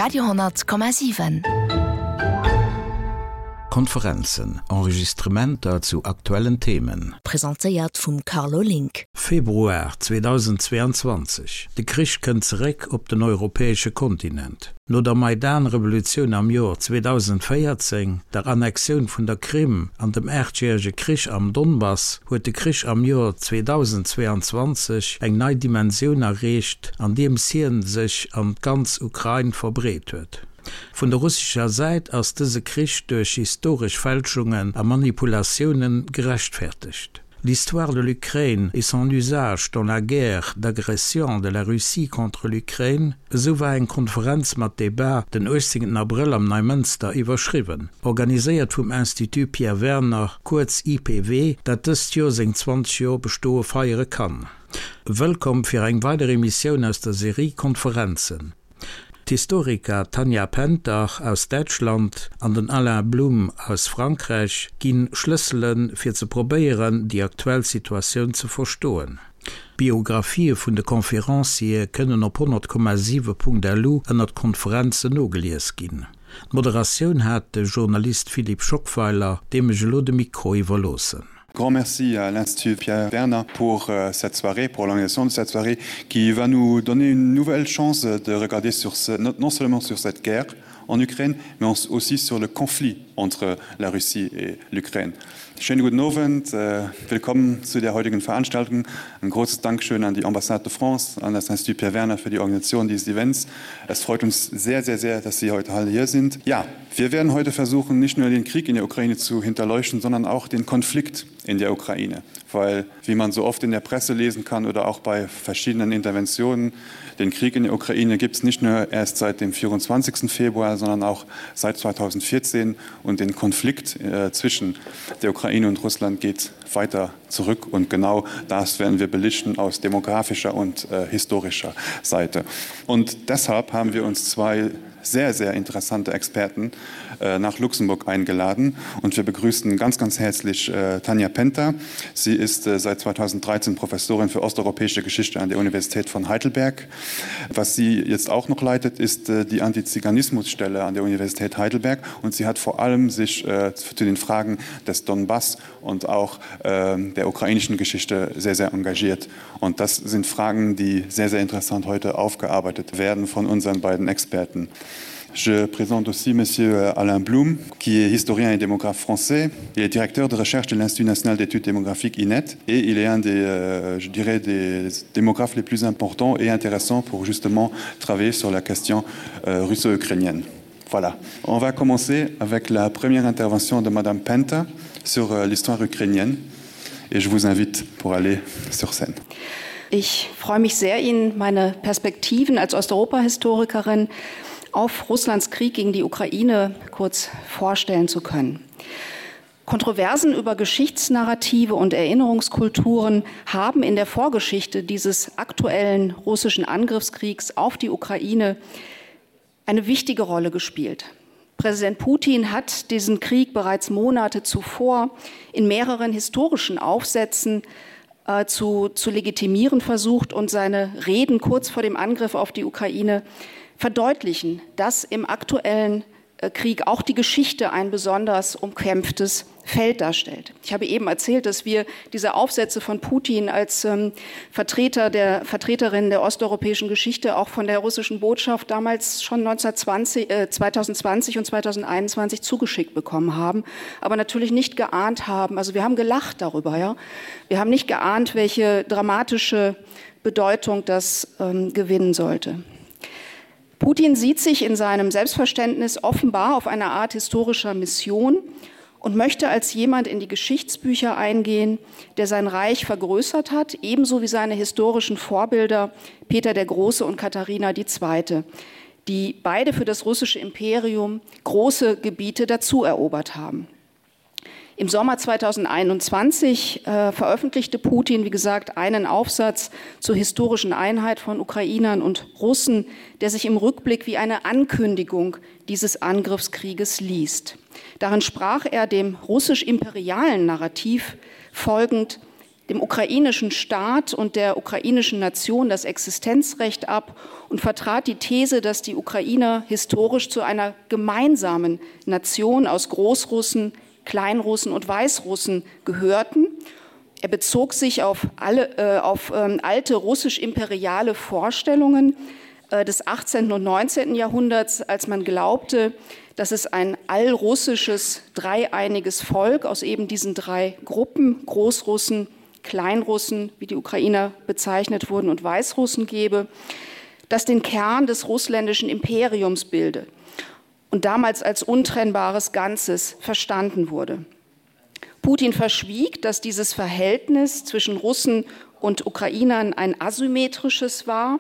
Radio,7. Konferenzen, Enregistrementer zu aktuellen Themen. Presentéiert vum Carlo Link. Februar 2022, De Krich kënnt zeréck op den europäesche Kontinent. No der Maidan-Revolutioun am Joer 2014, der Annexioun vun der Krim an dem aachtjärege Krich am Donbass huet de Krich am Joer 2022 eng nei Dimensioun erreecht, andeems hien sech an d'ganz Ukrain verbreet huet. Vun der russescher Säit ass dëse Krich duerch historesch Fälschungen a Manipulatioune gerechtfertegt. L'histoire de l'Ukraine et son usage dans la guerre d'agression de la Russie contre l'Ukraine, esou war eng Konferenz mat Debat den 18 Abrëll am Neimënster iwwerschriwwen, organiséiert vum Institut Pierre Werner, kuerz IPW, dat dëst Joer seng 20 Joer Bestoe feiere kann. Wëllkomm fir eng weider Emissioun aus der Serie Konferenzen. D'Historiker Tanja Penter aus Däitschland an den Alain Blum aus Frankräich gi Schlëssele fir ze probéieren, déi aktuell Situatioun ze verstoen. D'Biographië vun de Conférenciere kënnen op 100,7.lu ënnert Konferenzen nogelies ginn. D'Moderatioun hat de Journalist Philippe Schockweiler, deem ech elo de Mikro iwwerloossen. Grand merci à l'Institut Pierre Werner pour euh, cette soirée, pour l'organisation de cette soirée qui va nous donner une nouvelle chance de regarder sur ce, non seulement sur cette guerre en Ukraine, mais aussi sur le conflit entre la Russie et l'Ukraine. Schönen guten Abend, äh, willkommen zu der heutigen Veranstaltung. Ein großes Dankeschön an die Ambassade de France, an das Institut Pierre Werner für die Organisation dieses Events. Es freut uns sehr, sehr, sehr, dass Sie heute alle hier sind. Ja, wir werden heute versuchen, nicht nur den Krieg in der Ukraine zu hinterleuchten, sondern auch den Konflikt in der Ukraine. Weil, wie man so oft in der Presse lesen kann oder auch bei verschiedenen Interventionen, den Krieg in der Ukraine gibt es nicht nur erst seit dem 24. Februar, sondern auch seit 2014 und den Konflikt äh, zwischen der Ukraine und Russland geht weiter zurück und genau das werden wir belichten aus demografischer und äh, historischer Seite. Und deshalb haben wir uns zwei sehr, sehr interessante Experten äh, nach Luxemburg eingeladen und wir begrüßen ganz, ganz herzlich äh, Tanja Penter. Sie ist äh, seit 2013 Professorin für osteuropäische Geschichte an der Universität von Heidelberg. Was sie jetzt auch noch leitet, ist äh, die Antiziganismusstelle an der Universität Heidelberg und sie hat vor allem sich äh, zu den Fragen des Donbass und auch äh, der ukrainischen Geschichte sehr, sehr engagiert. Und das sind Fragen, die sehr, sehr interessant heute aufgearbeitet werden von unseren beiden Experten. Je présente aussi monsieur euh, Alain Blum, qui est historien et démographe français. Il est directeur de recherche de l'Institut national d'études démographiques INET et il est un des, euh, je dirais, des démographes les plus importants et intéressants pour justement travailler sur la question euh, russo-ukrainienne. Voilà. On va commencer avec la première intervention de madame Penta sur euh, l'histoire ukrainienne et je vous invite pour aller sur scène. Ich freue mich sehr, Ihnen meine Perspektiven als Osteuropa-Historikerin auf Russlands Krieg gegen die Ukraine kurz vorstellen zu können. Kontroversen über Geschichtsnarrative und Erinnerungskulturen haben in der Vorgeschichte dieses aktuellen russischen Angriffskriegs auf die Ukraine eine wichtige Rolle gespielt. Präsident Putin hat diesen Krieg bereits Monate zuvor in mehreren historischen Aufsätzen äh, zu, zu legitimieren versucht und seine Reden kurz vor dem Angriff auf die Ukraine verdeutlichen, dass im aktuellen äh, Krieg auch die Geschichte ein besonders umkämpftes Feld darstellt. Ich habe eben erzählt, dass wir diese Aufsätze von Putin als ähm, Vertreter der Vertreterin der osteuropäischen Geschichte auch von der russischen Botschaft damals schon 1920, äh, 2020 und 2021 zugeschickt bekommen haben, aber natürlich nicht geahnt haben. Also wir haben gelacht darüber. Ja? Wir haben nicht geahnt, welche dramatische Bedeutung das ähm, gewinnen sollte. Putin sieht sich in seinem Selbstverständnis offenbar auf eine Art historischer Mission und möchte als jemand in die Geschichtsbücher eingehen, der sein Reich vergrößert hat, ebenso wie seine historischen Vorbilder Peter der Große und Katharina II., die beide für das russische Imperium große Gebiete dazu erobert haben. Im Sommer 2021 äh, veröffentlichte Putin, wie gesagt, einen Aufsatz zur historischen Einheit von Ukrainern und Russen, der sich im Rückblick wie eine Ankündigung dieses Angriffskrieges liest. Darin sprach er dem russisch-imperialen Narrativ folgend. dem ukrainischen Staat und der ukrainischen Nation das Existenzrecht ab und vertrat die These, dass die Ukrainer historisch zu einer gemeinsamen Nation aus Großrussen, Kleinrussen und Weißrussen gehörten. Er bezog sich auf, alle, äh, auf ähm, alte russisch-imperiale Vorstellungen äh, des 18. und 19. Jahrhunderts, als man glaubte, dass es ein allrussisches dreieiniges Volk aus eben diesen drei Gruppen Großrussen, Kleinrussen, wie die Ukrainer bezeichnet wurden und Weißrussen gebe, das den Kern des russländischen Imperiums bilde und damals als untrennbares Ganzes verstanden wurde. Putin verschwieg, dass dieses Verhältnis zwischen Russen und Ukrainern ein asymmetrisches war,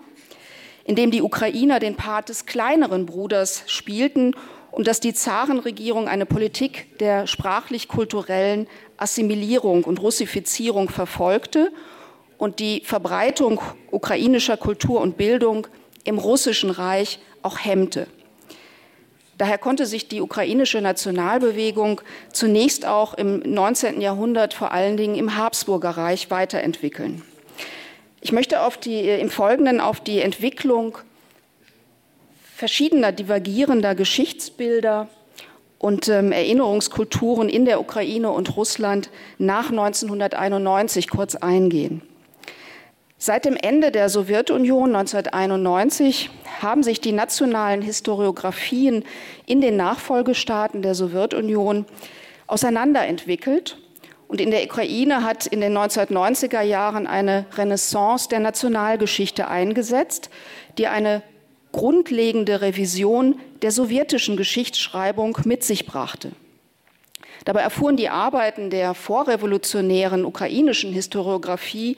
in dem die Ukrainer den Part des kleineren Bruders spielten und dass die Zarenregierung eine Politik der sprachlich-kulturellen Assimilierung und Russifizierung verfolgte und die Verbreitung ukrainischer Kultur und Bildung im russischen Reich auch hemmte. Daher konnte sich die ukrainische Nationalbewegung zunächst auch im 19. Jahrhundert vor allen Dingen im Habsburgerreich weiterentwickeln. Ich möchte auf die, äh, im Folgenden auf die Entwicklung verschiedener divergierender Geschichtsbilder und ähm, Erinnerungskulturen in der Ukraine und Russland nach 1991 kurz eingehen. Seit dem Ende der Sowjetunion 1991 haben sich die nationalen Historiografien in den Nachfolgestaaten der Sowjetunion auseinanderentwickelt. Und in der Ukraine hat in den 1990er Jahren eine Renaissance der Nationalgeschichte eingesetzt, die eine grundlegende Revision der sowjetischen Geschichtsschreibung mit sich brachte. Dabei erfuhren die Arbeiten der vorrevolutionären ukrainischen Historiographie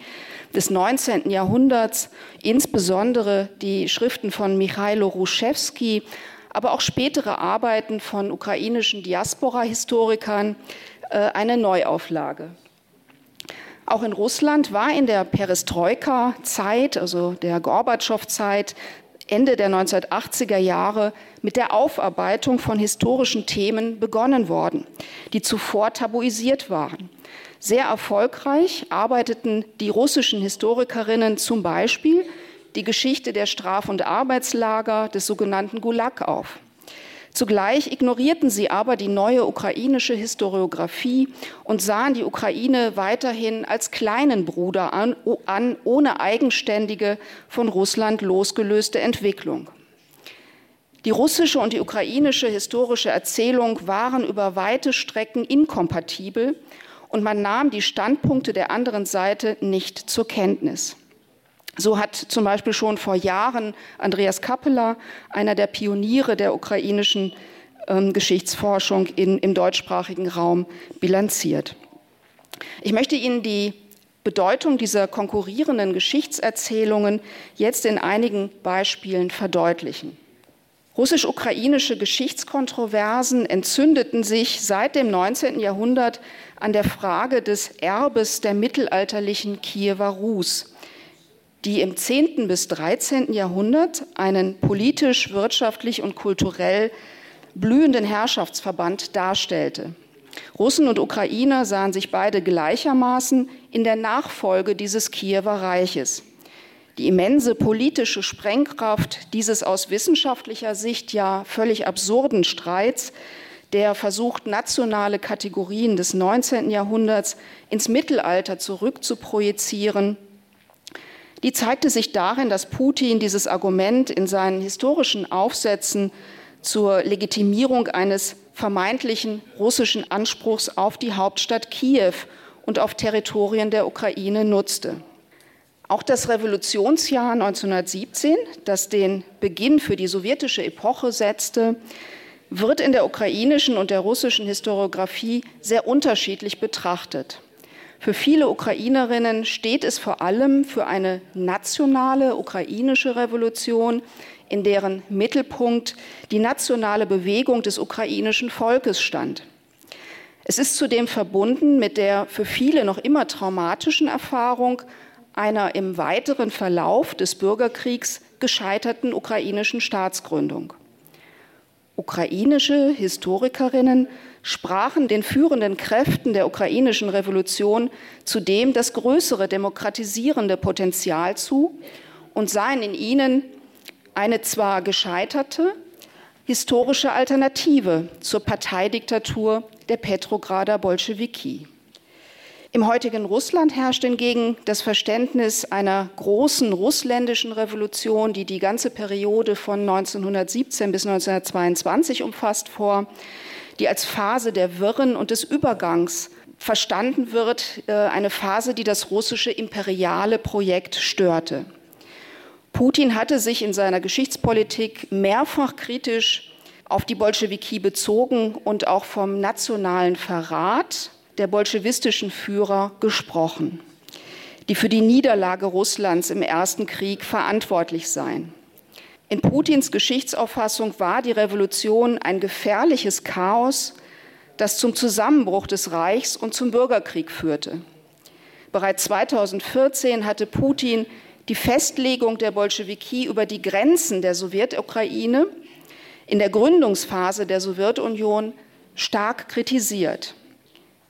des 19. Jahrhunderts, insbesondere die Schriften von Michailo Ruschewski, aber auch spätere Arbeiten von ukrainischen Diaspora-Historikern äh, eine Neuauflage. Auch in Russland war in der Perestroika-Zeit, also der Gorbatschow-Zeit, Ende der 1980er Jahre mit der Aufarbeitung von historischen Themen begonnen worden, die zuvor tabuisiert waren. Sehr erfolgreich arbeiteten die russischen Historikerinnen zum Beispiel die Geschichte der Straf- und Arbeitslager des sogenannten Gulag auf. Zugleich ignorierten sie aber die neue ukrainische Historiographie und sahen die Ukraine weiterhin als kleinen Bruder an, an ohne eigenständige, von Russland losgelöste Entwicklung. Die russische und die ukrainische historische Erzählung waren über weite Strecken inkompatibel und man nahm die Standpunkte der anderen Seite nicht zur Kenntnis. So hat zum Beispiel schon vor Jahren Andreas Kappeler, einer der Pioniere der ukrainischen ähm, Geschichtsforschung in, im deutschsprachigen Raum, bilanziert. Ich möchte Ihnen die Bedeutung dieser konkurrierenden Geschichtserzählungen jetzt in einigen Beispielen verdeutlichen. Russisch-ukrainische Geschichtskontroversen entzündeten sich seit dem 19. Jahrhundert an der Frage des Erbes der mittelalterlichen Kiewer Rus, die im 10. bis 13. Jahrhundert einen politisch, wirtschaftlich und kulturell blühenden Herrschaftsverband darstellte. Russen und Ukrainer sahen sich beide gleichermaßen in der Nachfolge dieses Kiewer Reiches. Die immense politische Sprengkraft dieses aus wissenschaftlicher Sicht ja völlig absurden Streits, der versucht, nationale Kategorien des 19. Jahrhunderts ins Mittelalter zurückzuprojizieren, Die zeigte sich darin, dass Putin dieses Argument in seinen historischen Aufsätzen zur Legitimierung eines vermeintlichen russischen Anspruchs auf die Hauptstadt Kiew und auf Territorien der Ukraine nutzte. Auch das Revolutionsjahr 1917, das den Beginn für die sowjetische Epoche setzte, wird in der ukrainischen und der russischen Historiographie sehr unterschiedlich betrachtet. Für viele Ukrainerinnen steht es vor allem für eine nationale ukrainische Revolution, in deren Mittelpunkt die nationale Bewegung des ukrainischen Volkes stand. Es ist zudem verbunden mit der für viele noch immer traumatischen Erfahrung einer im weiteren Verlauf des Bürgerkriegs gescheiterten ukrainischen Staatsgründung. Ukrainische Historikerinnen sprachen den führenden Kräften der ukrainischen Revolution zudem das größere demokratisierende Potenzial zu und sahen in ihnen eine zwar gescheiterte, historische Alternative zur Parteidiktatur der Petrograder Bolschewiki. Im heutigen Russland herrscht hingegen das Verständnis einer großen russländischen Revolution, die die ganze Periode von 1917 bis 1922 umfasst, vor, die als Phase der Wirren und des Übergangs verstanden wird, äh, eine Phase, die das russische imperiale Projekt störte. Putin hatte sich in seiner Geschichtspolitik mehrfach kritisch auf die Bolschewiki bezogen und auch vom nationalen Verrat der bolschewistischen Führer gesprochen, die für die Niederlage Russlands im Ersten Krieg verantwortlich seien. In Putins Geschichtsauffassung war die Revolution ein gefährliches Chaos, das zum Zusammenbruch des Reichs und zum Bürgerkrieg führte. Bereits 2014 hatte Putin die Festlegung der Bolschewiki über die Grenzen der Sowjetukraine in der Gründungsphase der Sowjetunion stark kritisiert.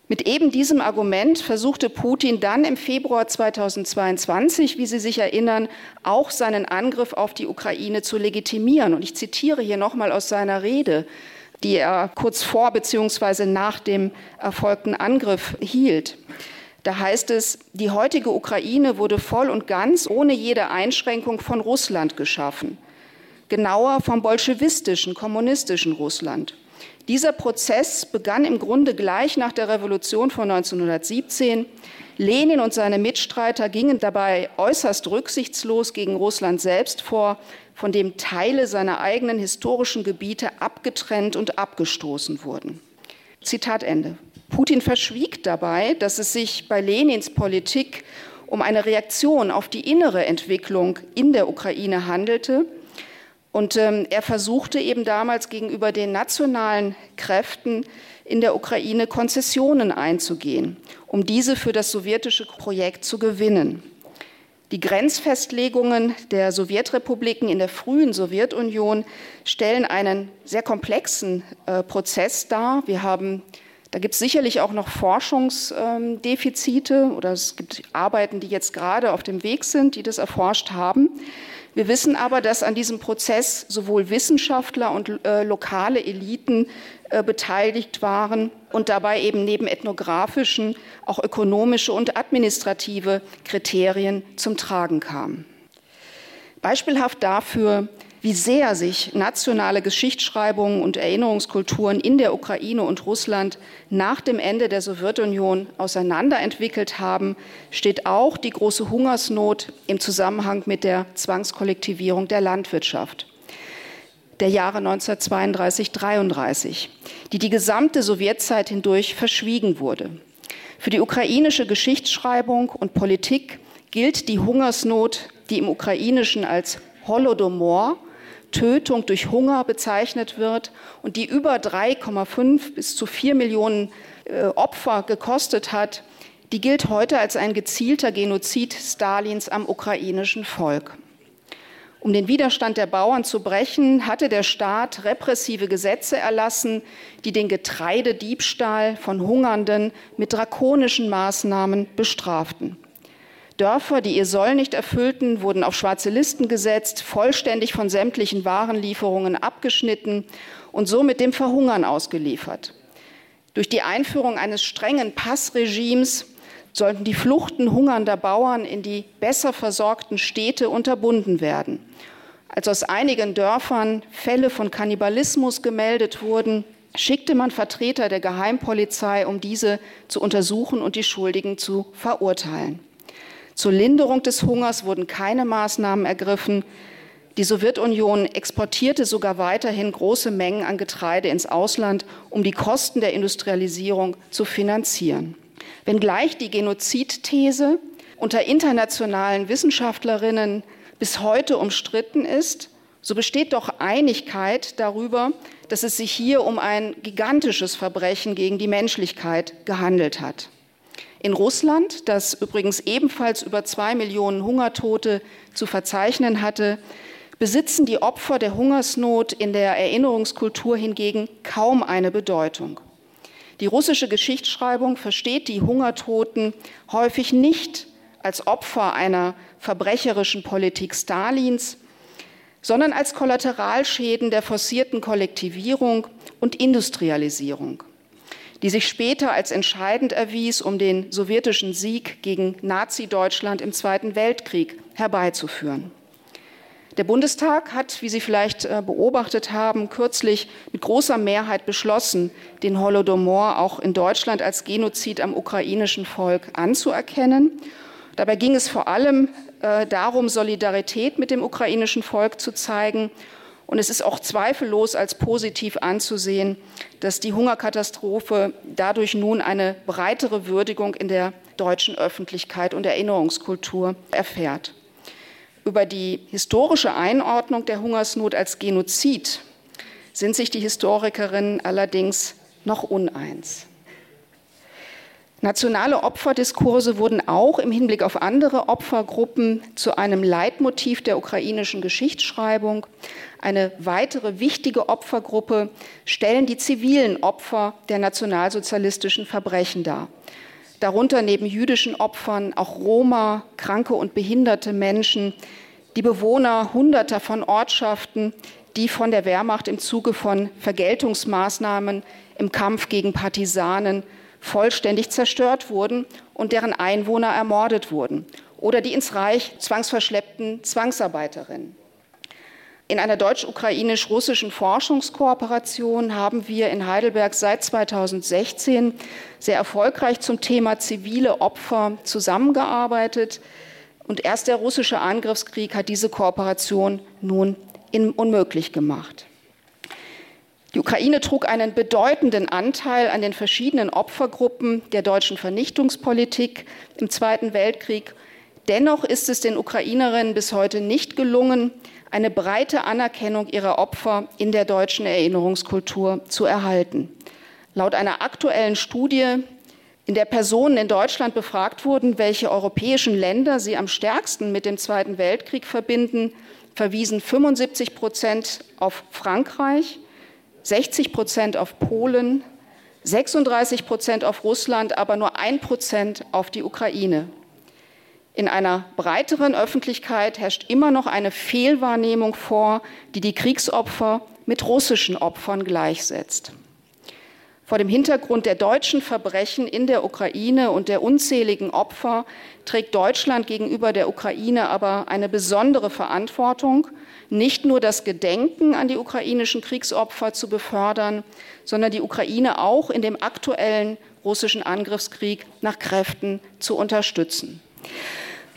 Mit eben diesem Argument versuchte Putin dann im Februar 2022, wie Sie sich erinnern, auch seinen Angriff auf die Ukraine zu legitimieren. Und ich zitiere hier noch mal aus seiner Rede, die er kurz vor bzw. nach dem erfolgten Angriff hielt. Da heißt es, die heutige Ukraine wurde voll und ganz ohne jede Einschränkung von Russland geschaffen. Genauer vom bolschewistischen, kommunistischen Russland. Dieser Prozess begann im Grunde gleich nach der Revolution von 1917. Lenin und seine Mitstreiter gingen dabei äußerst rücksichtslos gegen Russland selbst vor, von dem Teile seiner eigenen historischen Gebiete abgetrennt und abgestoßen wurden. Zitat Ende. Putin verschwieg dabei, dass es sich bei Lenins Politik um eine Reaktion auf die innere Entwicklung in der Ukraine handelte. Und ähm, er versuchte eben damals gegenüber den nationalen Kräften in der Ukraine Konzessionen einzugehen, um diese für das sowjetische Projekt zu gewinnen. Die Grenzfestlegungen der Sowjetrepubliken in der frühen Sowjetunion stellen einen sehr komplexen äh, Prozess dar. Wir haben da gibt es sicherlich auch noch Forschungsdefizite ähm, oder es gibt Arbeiten, die jetzt gerade auf dem Weg sind, die das erforscht haben. Wir wissen aber, dass an diesem Prozess sowohl Wissenschaftler und äh, lokale Eliten äh, beteiligt waren und dabei eben neben ethnografischen auch ökonomische und administrative Kriterien zum Tragen kamen. Beispielhaft dafür, wie sehr sich nationale Geschichtsschreibungen und Erinnerungskulturen in der Ukraine und Russland nach dem Ende der Sowjetunion auseinanderentwickelt haben, steht auch die große Hungersnot im Zusammenhang mit der Zwangskollektivierung der Landwirtschaft der Jahre 1932 33, die die gesamte Sowjetzeit hindurch verschwiegen wurde. Für die ukrainische Geschichtsschreibung und Politik gilt die Hungersnot, die im Ukrainischen als Holodomor, Tötung durch Hunger bezeichnet wird und die über 3,5 bis zu 4 Millionen äh, Opfer gekostet hat, die gilt heute als ein gezielter Genozid Stalins am ukrainischen Volk. Um den Widerstand der Bauern zu brechen, hatte der Staat repressive Gesetze erlassen, die den Getreidediebstahl von Hungernden mit drakonischen Maßnahmen bestraften. Dörfer, die ihr Soll nicht erfüllten, wurden auf schwarze Listen gesetzt, vollständig von sämtlichen Warenlieferungen abgeschnitten und somit dem Verhungern ausgeliefert. Durch die Einführung eines strengen Passregimes sollten die Fluchten hungernder Bauern in die besser versorgten Städte unterbunden werden. Als aus einigen Dörfern Fälle von Kannibalismus gemeldet wurden, schickte man Vertreter der Geheimpolizei, um diese zu untersuchen und die Schuldigen zu verurteilen. Zur Linderung des Hungers wurden keine Maßnahmen ergriffen. Die Sowjetunion exportierte sogar weiterhin große Mengen an Getreide ins Ausland, um die Kosten der Industrialisierung zu finanzieren. Wenngleich die Genozidthese unter internationalen Wissenschaftlerinnen bis heute umstritten ist, so besteht doch Einigkeit darüber, dass es sich hier um ein gigantisches Verbrechen gegen die Menschlichkeit gehandelt hat. In Russland, das übrigens ebenfalls über zwei Millionen Hungertote zu verzeichnen hatte, besitzen die Opfer der Hungersnot in der Erinnerungskultur hingegen kaum eine Bedeutung. Die russische Geschichtsschreibung versteht die Hungertoten häufig nicht als Opfer einer verbrecherischen Politik Stalins, sondern als Kollateralschäden der forcierten Kollektivierung und Industrialisierung, die sich später als entscheidend erwies, um den sowjetischen Sieg gegen Nazi-Deutschland im Zweiten Weltkrieg herbeizuführen. Der Bundestag hat, wie Sie vielleicht äh, beobachtet haben, kürzlich mit großer Mehrheit beschlossen, den Holodomor auch in Deutschland als Genozid am ukrainischen Volk anzuerkennen. Dabei ging es vor allem äh, darum, Solidarität mit dem ukrainischen Volk zu zeigen. Und es ist auch zweifellos als positiv anzusehen, dass die Hungerkatastrophe dadurch nun eine breitere Würdigung in der deutschen Öffentlichkeit und Erinnerungskultur erfährt. Über die historische Einordnung der Hungersnot als Genozid sind sich die Historikerinnen allerdings noch uneins. Nationale Opferdiskurse wurden auch im Hinblick auf andere Opfergruppen zu einem Leitmotiv der ukrainischen Geschichtsschreibung. Eine weitere wichtige Opfergruppe stellen die zivilen Opfer der nationalsozialistischen Verbrechen dar. Darunter neben jüdischen Opfern auch Roma, kranke und behinderte Menschen, die Bewohner hunderter von Ortschaften, die von der Wehrmacht im Zuge von Vergeltungsmaßnahmen im Kampf gegen Partisanen vollständig zerstört wurden und deren Einwohner ermordet wurden oder die ins Reich zwangsverschleppten Zwangsarbeiterinnen. In einer deutsch-ukrainisch-russischen Forschungskooperation haben wir in Heidelberg seit 2016 sehr erfolgreich zum Thema zivile Opfer zusammengearbeitet. Und erst der russische Angriffskrieg hat diese Kooperation nun unmöglich gemacht. Die Ukraine trug einen bedeutenden Anteil an den verschiedenen Opfergruppen der deutschen Vernichtungspolitik im Zweiten Weltkrieg. Dennoch ist es den Ukrainerinnen bis heute nicht gelungen, eine breite Anerkennung ihrer Opfer in der deutschen Erinnerungskultur zu erhalten. Laut einer aktuellen Studie, in der Personen in Deutschland befragt wurden, welche europäischen Länder sie am stärksten mit dem Zweiten Weltkrieg verbinden, verwiesen 75 Prozent auf Frankreich, 60 Prozent auf Polen, 36 Prozent auf Russland, aber nur ein Prozent auf die Ukraine. In einer breiteren Öffentlichkeit herrscht immer noch eine Fehlwahrnehmung vor, die die Kriegsopfer mit russischen Opfern gleichsetzt. Vor dem Hintergrund der deutschen Verbrechen in der Ukraine und der unzähligen Opfer trägt Deutschland gegenüber der Ukraine aber eine besondere Verantwortung, nicht nur das Gedenken an die ukrainischen Kriegsopfer zu befördern, sondern die Ukraine auch in dem aktuellen russischen Angriffskrieg nach Kräften zu unterstützen.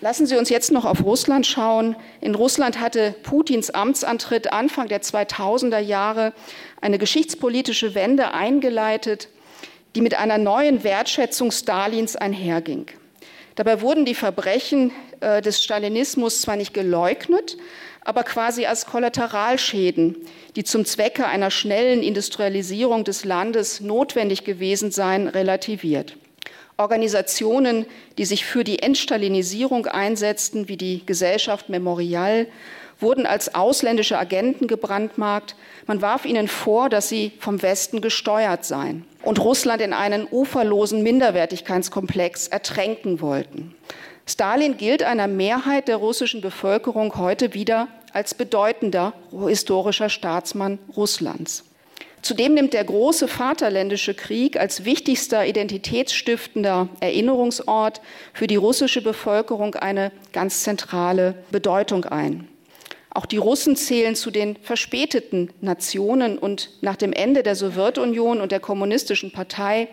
Lassen Sie uns jetzt noch auf Russland schauen. In Russland hatte Putins Amtsantritt Anfang der 2000er Jahre eine geschichtspolitische Wende eingeleitet, die mit einer neuen Wertschätzung Stalins einherging. Dabei wurden die Verbrechen äh, des Stalinismus zwar nicht geleugnet, aber quasi als Kollateralschäden, die zum Zwecke einer schnellen Industrialisierung des Landes notwendig gewesen seien, relativiert. Organisationen, die sich für die Entstalinisierung einsetzten, wie die Gesellschaft Memorial, wurden als ausländische Agenten gebrandmarkt. Man warf ihnen vor, dass sie vom Westen gesteuert seien und Russland in einen uferlosen Minderwertigkeitskomplex ertränken wollten. Stalin gilt einer Mehrheit der russischen Bevölkerung heute wieder als bedeutender historischer Staatsmann Russlands. Zudem nimmt der große Vaterländische Krieg als wichtigster identitätsstiftender Erinnerungsort für die russische Bevölkerung eine ganz zentrale Bedeutung ein. Auch die Russen zählen zu den verspäteten Nationen und nach dem Ende der Sowjetunion und der Kommunistischen Partei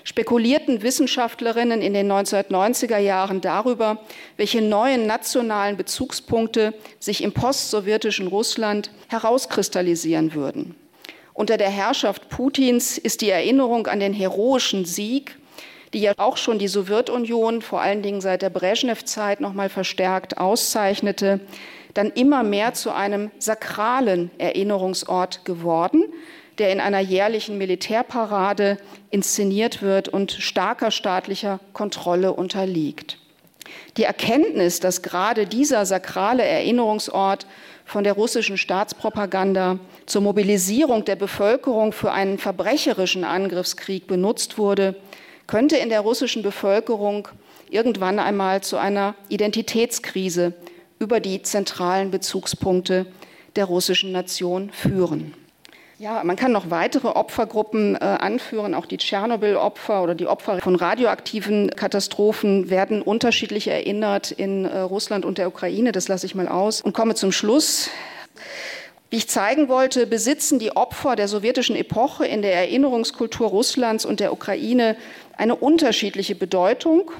spekulierten Wissenschaftlerinnen in den 1990er Jahren darüber, welche neuen nationalen Bezugspunkte sich im postsowjetischen Russland herauskristallisieren würden. Unter der Herrschaft Putins ist die Erinnerung an den heroischen Sieg, die ja auch schon die Sowjetunion vor allen Dingen seit der Brezhnev-Zeit noch mal verstärkt auszeichnete, dann immer mehr zu einem sakralen Erinnerungsort geworden, der in einer jährlichen Militärparade inszeniert wird und starker staatlicher Kontrolle unterliegt. Die Erkenntnis, dass gerade dieser sakrale Erinnerungsort von der russischen Staatspropaganda zur Mobilisierung der Bevölkerung für einen verbrecherischen Angriffskrieg benutzt wurde, könnte in der russischen Bevölkerung irgendwann einmal zu einer Identitätskrise über die zentralen Bezugspunkte der russischen Nation führen. Ja, man kann noch weitere Opfergruppen äh, anführen. Auch die Tschernobyl-Opfer oder die Opfer von radioaktiven Katastrophen werden unterschiedlich erinnert in äh, Russland und der Ukraine. Das lasse ich mal aus und komme zum Schluss. Wie ich zeigen wollte, besitzen die Opfer der sowjetischen Epoche in der Erinnerungskultur Russlands und der Ukraine eine unterschiedliche Bedeutung.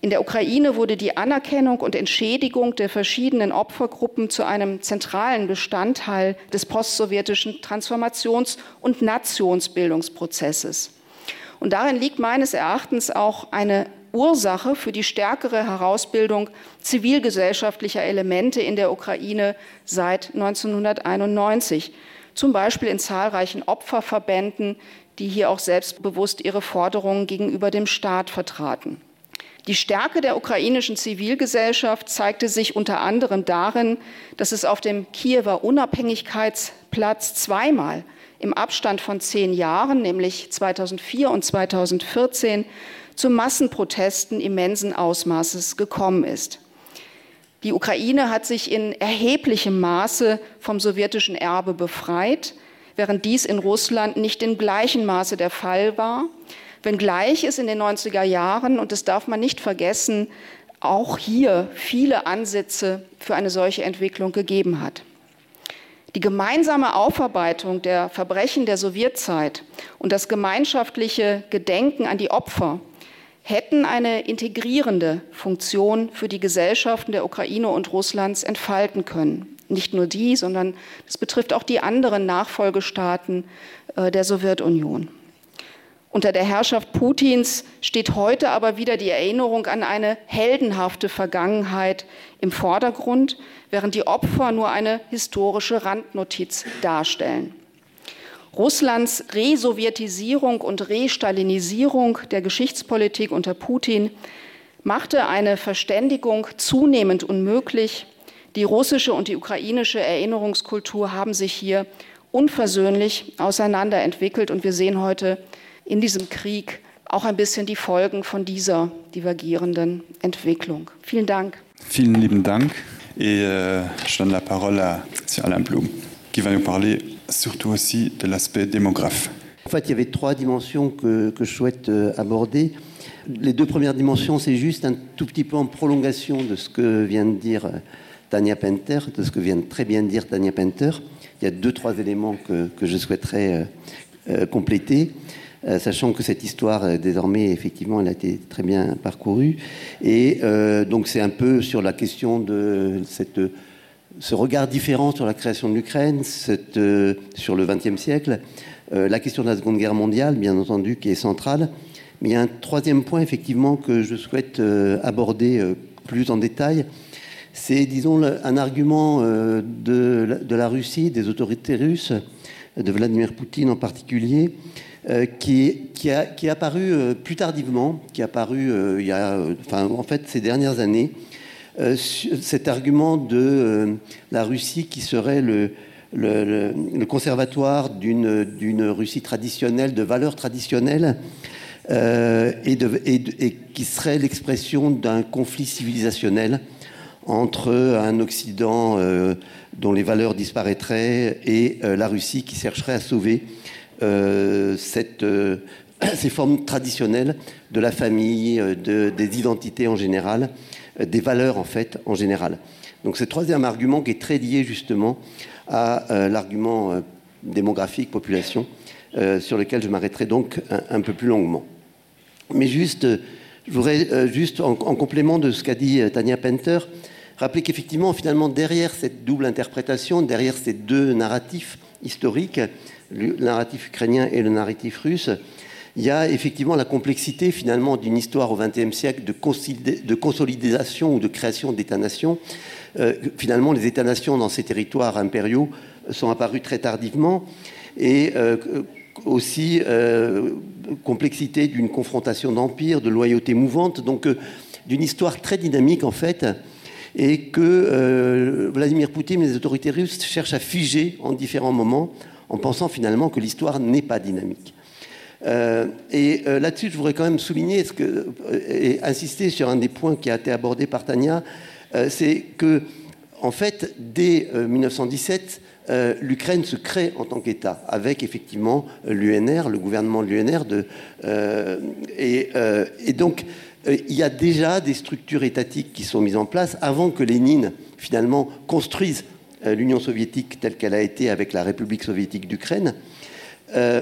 In der Ukraine wurde die Anerkennung und Entschädigung der verschiedenen Opfergruppen zu einem zentralen Bestandteil des postsowjetischen Transformations- und Nationsbildungsprozesses. Und darin liegt meines Erachtens auch eine Ursache für die stärkere Herausbildung zivilgesellschaftlicher Elemente in der Ukraine seit 1991, zum Beispiel in zahlreichen Opferverbänden, die hier auch selbstbewusst ihre Forderungen gegenüber dem Staat vertraten. Die Stärke der ukrainischen Zivilgesellschaft zeigte sich unter anderem darin, dass es auf dem Kiewer Unabhängigkeitsplatz zweimal im Abstand von zehn Jahren, nämlich 2004 und 2014, zu Massenprotesten immensen Ausmaßes gekommen ist. Die Ukraine hat sich in erheblichem Maße vom sowjetischen Erbe befreit, während dies in Russland nicht in gleichem Maße der Fall war wenngleich es in den 90er Jahren und das darf man nicht vergessen, auch hier viele Ansätze für eine solche Entwicklung gegeben hat. Die gemeinsame Aufarbeitung der Verbrechen der Sowjetzeit und das gemeinschaftliche Gedenken an die Opfer hätten eine integrierende Funktion für die Gesellschaften der Ukraine und Russlands entfalten können. Nicht nur die, sondern es betrifft auch die anderen Nachfolgestaaten äh, der Sowjetunion. Unter der Herrschaft Putins steht heute aber wieder die Erinnerung an eine heldenhafte Vergangenheit im Vordergrund, während die Opfer nur eine historische Randnotiz darstellen. Russlands Resowjetisierung und Restalinisierung der Geschichtspolitik unter Putin machte eine Verständigung zunehmend unmöglich. Die russische und die ukrainische Erinnerungskultur haben sich hier unversöhnlich auseinanderentwickelt und wir sehen heute in diesem Krieg auch ein bisschen die Folgen von dieser divergierenden Entwicklung. Vielen Dank. Vielen lieben Dank et euh, je donne la parole à Alain Blum qui va nous parler surtout aussi de l'aspect démographe. En fait, il y avait trois dimensions que, que je souhaite euh, aborder. Les deux premières dimensions, c'est juste un tout petit peu en prolongation de ce que vient de dire euh, Tania Penter, de ce que vient de très bien dire Tania Penter. Il y a deux, trois éléments que, que je souhaiterais euh, euh, compléter. Euh, sachant que cette histoire euh, désormais effectivement elle a été très bien parcourue et euh, donc c'est un peu sur la question de cette ce regard différent sur la création de l'Ukraine cette euh, sur le XXe siècle euh, la question de la seconde guerre mondiale bien entendu qui est centrale mais il y a un troisième point effectivement que je souhaite euh, aborder euh, plus en détail c'est disons le, un argument euh, de, de la Russie des autorités russes de Vladimir Poutine en particulier euh, Euh, qui, qui, a, qui est apparu euh, plus tardivement, qui est apparu euh, il y a, euh, enfin, en fait ces dernières années, euh, cet argument de euh, la Russie qui serait le, le, le, le conservatoire d'une Russie traditionnelle, de valeurs traditionnelles, euh, et, de, et, de, et qui serait l'expression d'un conflit civilisationnel entre un Occident euh, dont les valeurs disparaîtraient et euh, la Russie qui chercherait à sauver euh, cette, euh, ces formes traditionnelles de la famille, euh, de, des identités en général, euh, des valeurs en fait en général. Donc ce troisième argument qui est très lié justement à euh, l'argument euh, démographique population euh, sur lequel je m'arrêterai donc un, un peu plus longuement. Mais juste, euh, je voudrais euh, juste en, en complément de ce qu'a dit euh, Tania Penter, rappeler qu'effectivement finalement derrière cette double interprétation, derrière ces deux narratifs historiques, le narratif ukrainien et le narratif russe, il y a effectivement la complexité finalement d'une histoire au XXe siècle de, de consolidation ou de création d'États-nations. Euh, finalement, les États-nations dans ces territoires impériaux sont apparus très tardivement et euh, aussi euh, complexité d'une confrontation d'empire, de loyauté mouvante. Donc euh, d'une histoire très dynamique en fait et que euh, Vladimir Poutine et les autorités russes cherchent à figer en différents moments en pensant finalement que l'histoire n'est pas dynamique. Euh, et euh, là-dessus, je voudrais quand même souligner ce que, euh, et insister sur un des points qui a été abordé par Tania, euh, c'est que en fait, dès euh, 1917, euh, l'Ukraine se crée en tant qu'État, avec effectivement l'UNR, le gouvernement de l'UNR. De, euh, et, euh, et donc, euh, il y a déjà des structures étatiques qui sont mises en place avant que Lénine, finalement, construise euh, l'Union soviétique telle qu'elle a été avec la République soviétique d'Ukraine. Euh,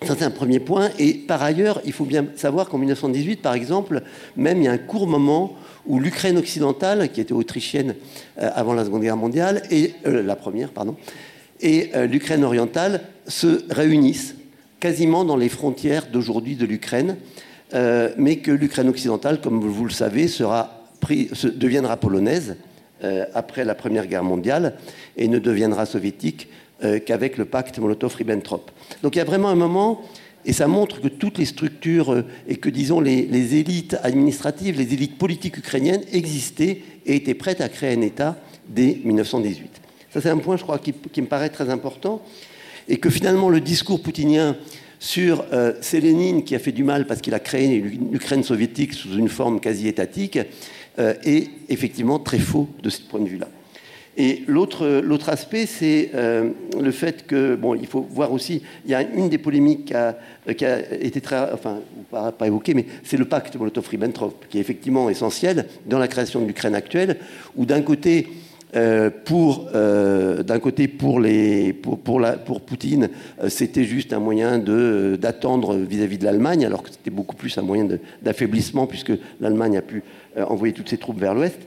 Ça, c'est un premier point. Et par ailleurs, il faut bien savoir qu'en 1918, par exemple, même il y a un court moment où l'Ukraine occidentale, qui était autrichienne euh, avant la Seconde Guerre mondiale, et euh, la première, pardon, et euh, l'Ukraine orientale se réunissent quasiment dans les frontières d'aujourd'hui de l'Ukraine, euh, mais que l'Ukraine occidentale, comme vous le savez, sera pris, se, deviendra polonaise euh, après la Première Guerre mondiale et ne deviendra soviétique euh, qu'avec le pacte Molotov-Ribbentrop. Donc il y a vraiment un moment, et ça montre que toutes les structures euh, et que, disons, les, les élites administratives, les élites politiques ukrainiennes existaient et étaient prêtes à créer un État dès 1918. Ça, c'est un point, je crois, qui, qui me paraît très important, et que finalement le discours poutinien sur euh, c'est Lénine qui a fait du mal parce qu'il a créé l'Ukraine soviétique sous une forme quasi étatique euh, est effectivement très faux de ce point de vue-là. Et l'autre aspect, c'est euh, le fait que, bon, il faut voir aussi, il y a une des polémiques qui a, qui a été très, enfin, pas, pas évoquée, mais c'est le pacte Molotov-Ribbentrop, qui est effectivement essentiel dans la création de l'Ukraine actuelle, où d'un côté, euh, pour euh, d'un côté pour les pour, pour la pour Poutine euh, c'était juste un moyen de d'attendre vis-à-vis de l'Allemagne alors que c'était beaucoup plus un moyen d'affaiblissement puisque l'Allemagne a pu euh, envoyer toutes ses troupes vers l'ouest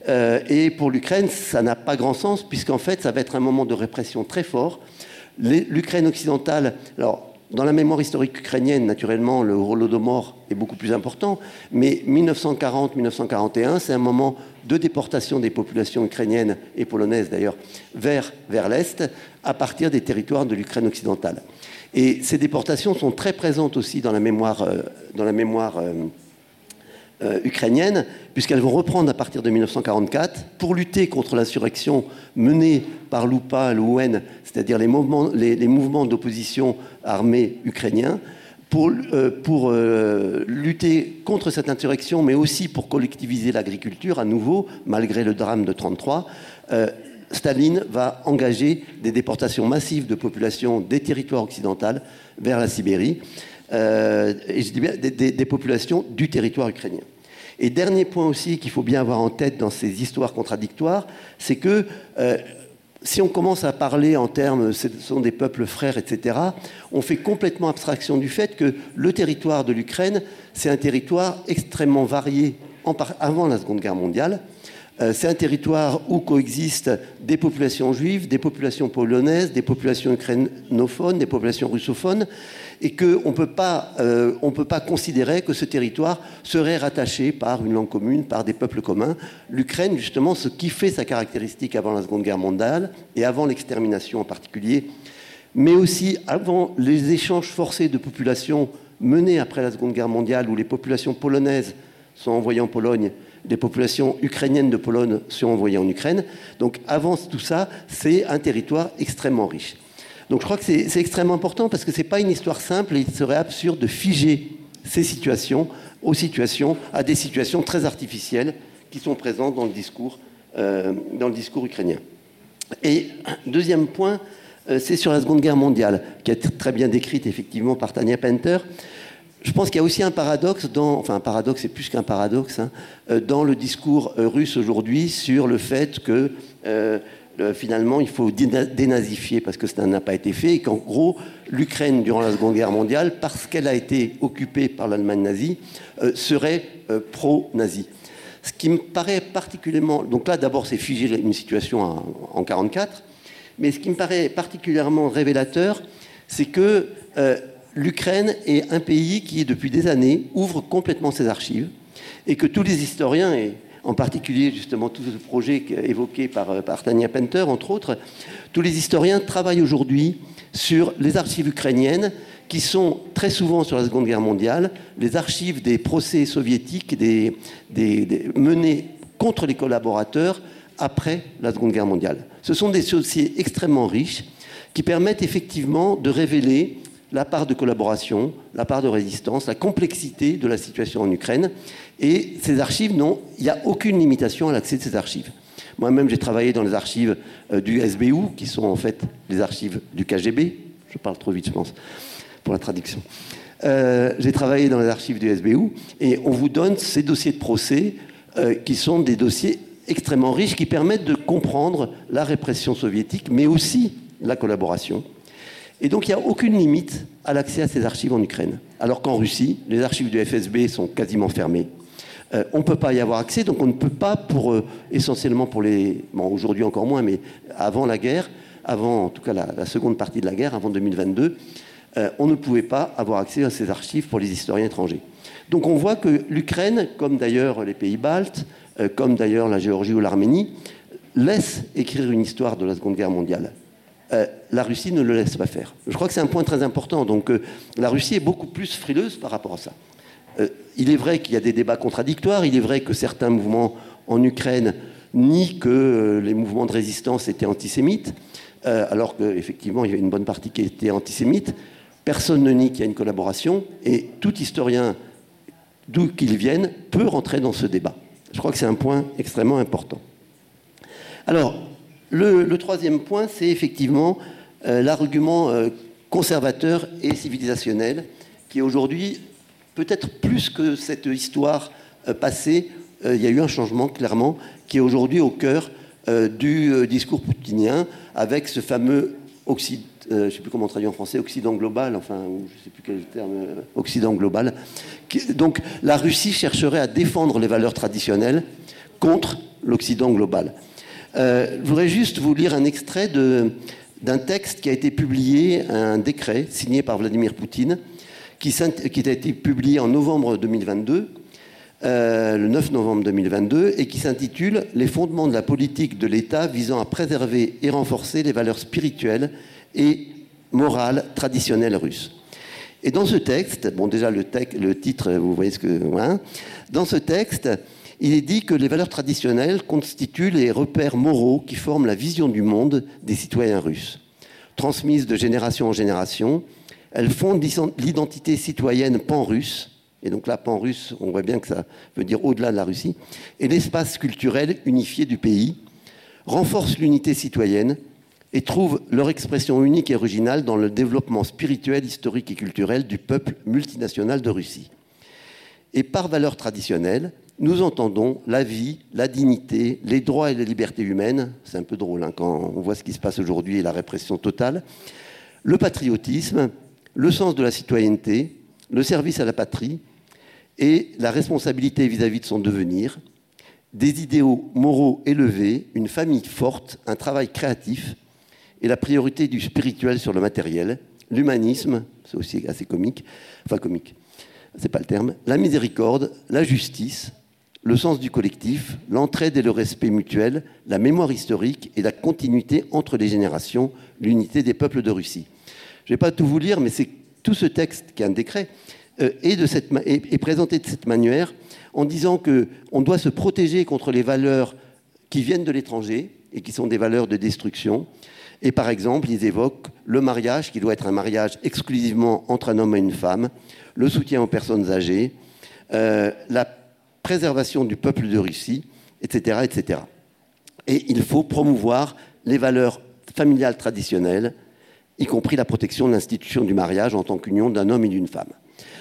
euh, et pour l'Ukraine ça n'a pas grand sens puisqu'en fait ça va être un moment de répression très fort l'Ukraine occidentale alors dans la mémoire historique ukrainienne naturellement le holodomor est beaucoup plus important mais 1940 1941 c'est un moment de déportation des populations ukrainiennes et polonaises d'ailleurs vers vers l'est à partir des territoires de l'Ukraine occidentale et ces déportations sont très présentes aussi dans la mémoire euh, dans la mémoire euh, euh, ukrainienne puisqu'elles vont reprendre à partir de 1944 pour lutter contre l'insurrection menée par l'UPA l'ON c'est-à-dire les mouvements les, les mouvements d'opposition armée ukrainiens pour, euh, pour euh, lutter contre cette insurrection mais aussi pour collectiviser l'agriculture à nouveau malgré le drame de 33 euh, Staline va engager des déportations massives de populations des territoires occidentaux vers la Sibérie euh, et je dis bien des, des, des populations du territoire ukrainien. Et dernier point aussi qu'il faut bien avoir en tête dans ces histoires contradictoires, c'est que euh, si on commence à parler en termes ce sont des peuples frères, etc., on fait complètement abstraction du fait que le territoire de l'Ukraine, c'est un territoire extrêmement varié en par... avant la Seconde Guerre mondiale. Euh, c'est un territoire où coexistent des populations juives, des populations polonaises, des populations ukrainophones, des populations russophones et qu'on ne peut pas, euh, on peut pas considérer que ce territoire serait rattaché par une langue commune, par des peuples communs. L'Ukraine, justement, ce qui fait sa caractéristique avant la Seconde Guerre mondiale et avant l'extermination en particulier, mais aussi avant les échanges forcés de populations menés après la Seconde Guerre mondiale, où les populations polonaises sont envoyées en Pologne, les populations ukrainiennes de Pologne sont envoyées en Ukraine. Donc avant tout ça, c'est un territoire extrêmement riche. Donc je crois que c'est extrêmement important parce que ce n'est pas une histoire simple et il serait absurde de figer ces situations aux situations à des situations très artificielles qui sont présentes dans le discours, euh, dans le discours ukrainien. Et deuxième point, euh, c'est sur la Seconde Guerre mondiale, qui est très bien décrite effectivement par Tania Penter. Je pense qu'il y a aussi un paradoxe dans, enfin un paradoxe c'est plus qu'un paradoxe hein, euh, dans le discours euh, russe aujourd'hui sur le fait que euh, Euh, finalement il faut dénazifier parce que cela n'a pas été fait et qu'en gros l'Ukraine durant la Seconde Guerre mondiale parce qu'elle a été occupée par l'Allemagne nazie euh, serait euh, pro-nazie. Ce qui me paraît particulièrement donc là d'abord c'est figé une situation en, en 44 mais ce qui me paraît particulièrement révélateur c'est que euh, l'Ukraine est un pays qui depuis des années ouvre complètement ses archives et que tous les historiens et en particulier justement tout ce projet évoqué par, euh, par Tania Penter entre autres, tous les historiens travaillent aujourd'hui sur les archives ukrainiennes qui sont très souvent sur la Seconde Guerre mondiale les archives des procès soviétiques des, des, des, menés contre les collaborateurs après la Seconde Guerre mondiale. Ce sont des dossiers extrêmement riches qui permettent effectivement de révéler la part de collaboration, la part de résistance, la complexité de la situation en Ukraine. Et ces archives n'ont il n'y a aucune limitation à l'accès de ces archives. Moi-même, j'ai travaillé dans les archives euh, du SBU, qui sont en fait les archives du KGB. Je parle trop vite, je pense, pour la traduction. Euh, j'ai travaillé dans les archives du SBU et on vous donne ces dossiers de procès euh, qui sont des dossiers extrêmement riches qui permettent de comprendre la répression soviétique, mais aussi la collaboration. Et donc il n'y a aucune limite à l'accès à ces archives en Ukraine. Alors qu'en Russie, les archives du FSB sont quasiment fermées. Euh, on ne peut pas y avoir accès, donc on ne peut pas, pour, euh, essentiellement pour les. Bon, aujourd'hui encore moins, mais avant la guerre, avant en tout cas la, la seconde partie de la guerre, avant 2022, euh, on ne pouvait pas avoir accès à ces archives pour les historiens étrangers. Donc on voit que l'Ukraine, comme d'ailleurs les pays baltes, euh, comme d'ailleurs la Géorgie ou l'Arménie, laisse écrire une histoire de la Seconde Guerre mondiale. Euh, la Russie ne le laisse pas faire. Je crois que c'est un point très important. Donc euh, la Russie est beaucoup plus frileuse par rapport à ça. Euh, il est vrai qu'il y a des débats contradictoires, il est vrai que certains mouvements en Ukraine nient que euh, les mouvements de résistance étaient antisémites, euh, alors qu'effectivement il y avait une bonne partie qui était antisémite. Personne ne nie qu'il y a une collaboration et tout historien, d'où qu'il vienne, peut rentrer dans ce débat. Je crois que c'est un point extrêmement important. Alors, le, le troisième point, c'est effectivement euh, l'argument euh, conservateur et civilisationnel qui aujourd'hui, peut-être plus que cette histoire euh, passée, euh, il y a eu un changement clairement qui est aujourd'hui au cœur euh, du euh, discours poutinien avec ce fameux Occident, euh, je ne sais plus comment traduire en français, Occident global, enfin, ou je ne sais plus quel terme, euh, Occident global. Qui, donc la Russie chercherait à défendre les valeurs traditionnelles contre l'Occident global. Euh, je voudrais juste vous lire un extrait d'un texte qui a été publié, un décret signé par Vladimir Poutine, qui, qui a été publié en novembre 2022, euh, le 9 novembre 2022, et qui s'intitule Les fondements de la politique de l'État visant à préserver et renforcer les valeurs spirituelles et morales traditionnelles russes. Et dans ce texte, bon déjà le, te le titre, vous voyez ce que... Hein, dans ce texte, il est dit que les valeurs traditionnelles constituent les repères moraux qui forment la vision du monde des citoyens russes. Transmises de génération en génération, elles fondent l'identité citoyenne pan-russe, et donc là pan-russe, on voit bien que ça veut dire au-delà de la Russie, et l'espace culturel unifié du pays, renforcent l'unité citoyenne et trouvent leur expression unique et originale dans le développement spirituel, historique et culturel du peuple multinational de Russie. Et par valeurs traditionnelles, nous entendons la vie, la dignité, les droits et les libertés humaines, c'est un peu drôle hein, quand on voit ce qui se passe aujourd'hui et la répression totale, le patriotisme, le sens de la citoyenneté, le service à la patrie et la responsabilité vis-à-vis -vis de son devenir, des idéaux moraux élevés, une famille forte, un travail créatif et la priorité du spirituel sur le matériel, l'humanisme, c'est aussi assez comique, enfin comique, c'est pas le terme, la miséricorde, la justice, le sens du collectif, l'entraide et le respect mutuel, la mémoire historique et la continuité entre les générations, l'unité des peuples de Russie. Je ne vais pas tout vous lire, mais c'est tout ce texte qui est un décret euh, est, de cette, est, est présenté de cette manière en disant qu'on doit se protéger contre les valeurs qui viennent de l'étranger et qui sont des valeurs de destruction. Et par exemple, ils évoquent le mariage qui doit être un mariage exclusivement entre un homme et une femme, le soutien aux personnes âgées, euh, la préservation du peuple de Russie, etc. etc. Et il faut promouvoir les valeurs familiales traditionnelles, y compris la protection de l'institution du mariage en tant qu'union d'un homme et d'une femme.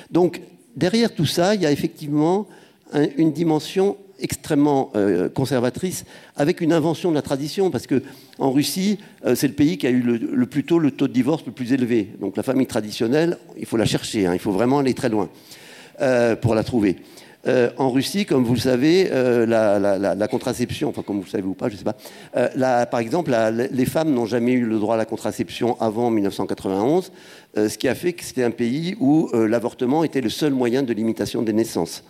Donc derrière tout ça, il y a effectivement un, une dimension extrêmement euh, conservatrice avec une invention de la tradition parce que en Russie euh, c'est le pays qui a eu le, le plus tôt le taux de divorce le plus élevé donc la famille traditionnelle il faut la chercher hein, il faut vraiment aller très loin euh, pour la trouver euh, en Russie comme vous le savez euh, la, la, la, la contraception enfin comme vous le savez ou pas je sais pas euh, la, par exemple la, les femmes n'ont jamais eu le droit à la contraception avant 1991 euh, ce qui a fait que c'était un pays où euh, l'avortement était le seul moyen de limitation des naissances.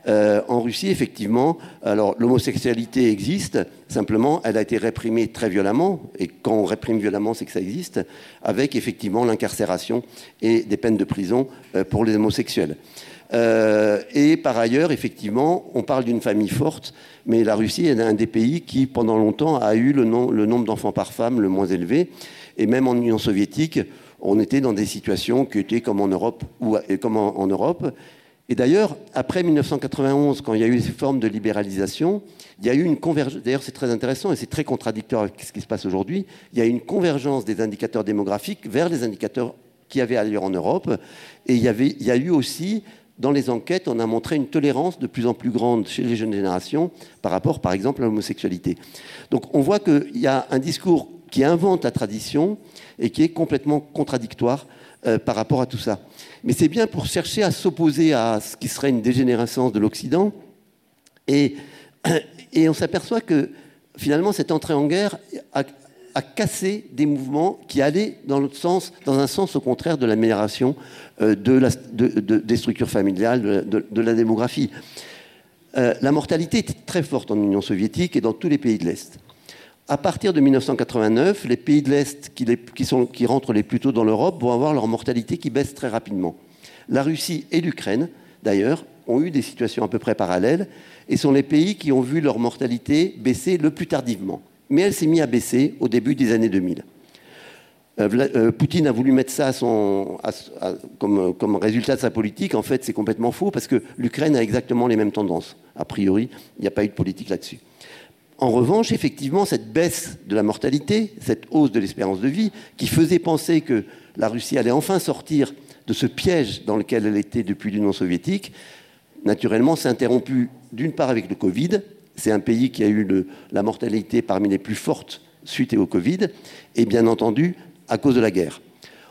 Euh, en Russie, effectivement, alors l'homosexualité existe, simplement elle a été réprimée très violemment, et quand on réprime violemment, c'est que ça existe, avec effectivement l'incarcération et des peines de prison euh, pour les homosexuels. Euh, et par ailleurs, effectivement, on parle d'une famille forte, mais la Russie est un des pays qui, pendant longtemps, a eu le, nom, le nombre d'enfants par femme le moins élevé. Et même en Union soviétique, on était dans des situations qui étaient comme en Europe ou comme en, en Europe. Et d'ailleurs, après 1991, quand il y a eu ces formes de libéralisation, il y a eu une convergence. D'ailleurs, c'est très intéressant et c'est très contradictoire avec ce qui se passe aujourd'hui. Il y a eu une convergence des indicateurs démographiques vers les indicateurs qui avaient ailleurs en Europe. Et il y, avait, il y a eu aussi, dans les enquêtes, on a montré une tolérance de plus en plus grande chez les jeunes générations par rapport, par exemple, à l'homosexualité. Donc on voit qu'il y a un discours qui invente la tradition et qui est complètement contradictoire euh, par rapport à tout ça. Mais c'est bien pour chercher à s'opposer à ce qui serait une dégénérescence de l'Occident. Et, et on s'aperçoit que finalement cette entrée en guerre a, a cassé des mouvements qui allaient dans l'autre sens, dans un sens au contraire de l'amélioration euh, de la, de, de, des structures familiales, de, de, de la démographie. Euh, la mortalité était très forte en Union soviétique et dans tous les pays de l'Est. À partir de 1989, les pays de l'Est qui, les, qui, sont, qui rentrent les plus tôt dans l'Europe vont avoir leur mortalité qui baisse très rapidement. La Russie et l'Ukraine, d'ailleurs, ont eu des situations à peu près parallèles et sont les pays qui ont vu leur mortalité baisser le plus tardivement. Mais elle s'est mise à baisser au début des années 2000. Euh, euh, Poutine a voulu mettre ça à son, à, à, comme, comme résultat de sa politique. En fait, c'est complètement faux parce que l'Ukraine a exactement les mêmes tendances. A priori, il n'y a pas eu de politique là-dessus. En revanche, effectivement, cette baisse de la mortalité, cette hausse de l'espérance de vie, qui faisait penser que la Russie allait enfin sortir de ce piège dans lequel elle était depuis l'Union soviétique, naturellement s'est interrompue d'une part avec le Covid. C'est un pays qui a eu le, la mortalité parmi les plus fortes suite au Covid, et bien entendu à cause de la guerre.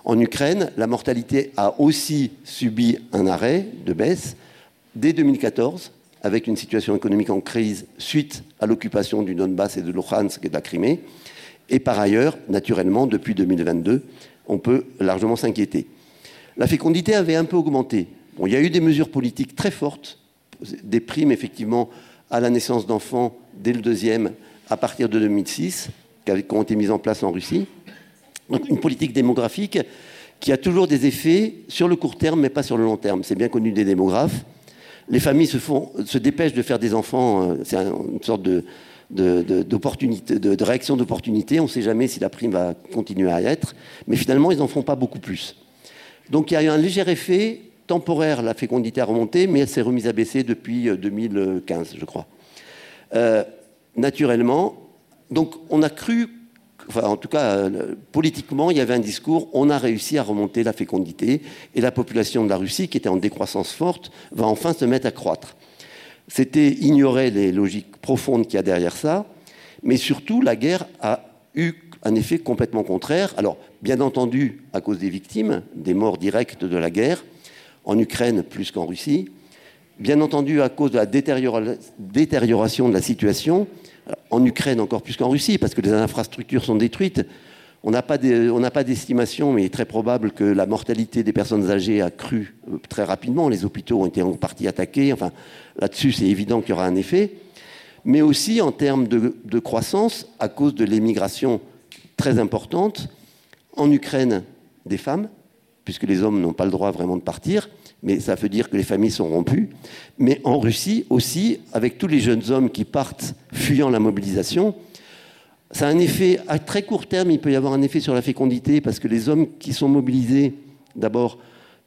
En Ukraine, la mortalité a aussi subi un arrêt de baisse dès 2014 avec une situation économique en crise suite à l'occupation du Donbass et de Luhansk et de la Crimée. Et par ailleurs, naturellement, depuis 2022, on peut largement s'inquiéter. La fécondité avait un peu augmenté. Bon, il y a eu des mesures politiques très fortes, des primes effectivement à la naissance d'enfants dès le deuxième à partir de 2006, qui ont été mises en place en Russie. Donc une politique démographique qui a toujours des effets sur le court terme, mais pas sur le long terme. C'est bien connu des démographes les familles se, font, se dépêchent de faire des enfants, euh, c'est une sorte de, de, de, d'opportunité, de, de réaction d'opportunité. On ne sait jamais si la prime va continuer à y être, mais finalement, ils n'en font pas beaucoup plus. Donc il y a eu un léger effet temporaire, la fécondité a remonté, mais elle s'est remise à baisser depuis 2015, euh, je crois. Euh, naturellement, donc on a cru enfin, en tout cas euh, politiquement, il y avait un discours, on a réussi à remonter la fécondité et la population de la Russie, qui était en décroissance forte, va enfin se mettre à croître. C'était ignorer les logiques profondes qu'il y a derrière ça, mais surtout la guerre a eu un effet complètement contraire. Alors, bien entendu, à cause des victimes, des morts directes de la guerre, en Ukraine plus qu'en Russie, bien entendu à cause de la détérioration de la situation, en Ukraine encore plus qu'en Russie, parce que les infrastructures sont détruites. On n'a pas d'estimation, mais il est très probable que la mortalité des personnes âgées a cru euh, très rapidement. Les hôpitaux ont été en partie attaqués. Enfin, là-dessus, c'est évident qu'il y aura un effet. Mais aussi en termes de, de croissance, à cause de l'émigration très importante en Ukraine des femmes, puisque les hommes n'ont pas le droit vraiment de partir, mais ça veut dire que les familles sont rompues. Mais en Russie aussi, avec tous les jeunes hommes qui partent fuyant la mobilisation, ça a un effet à très court terme, il peut y avoir un effet sur la fécondité, parce que les hommes qui sont mobilisés, d'abord,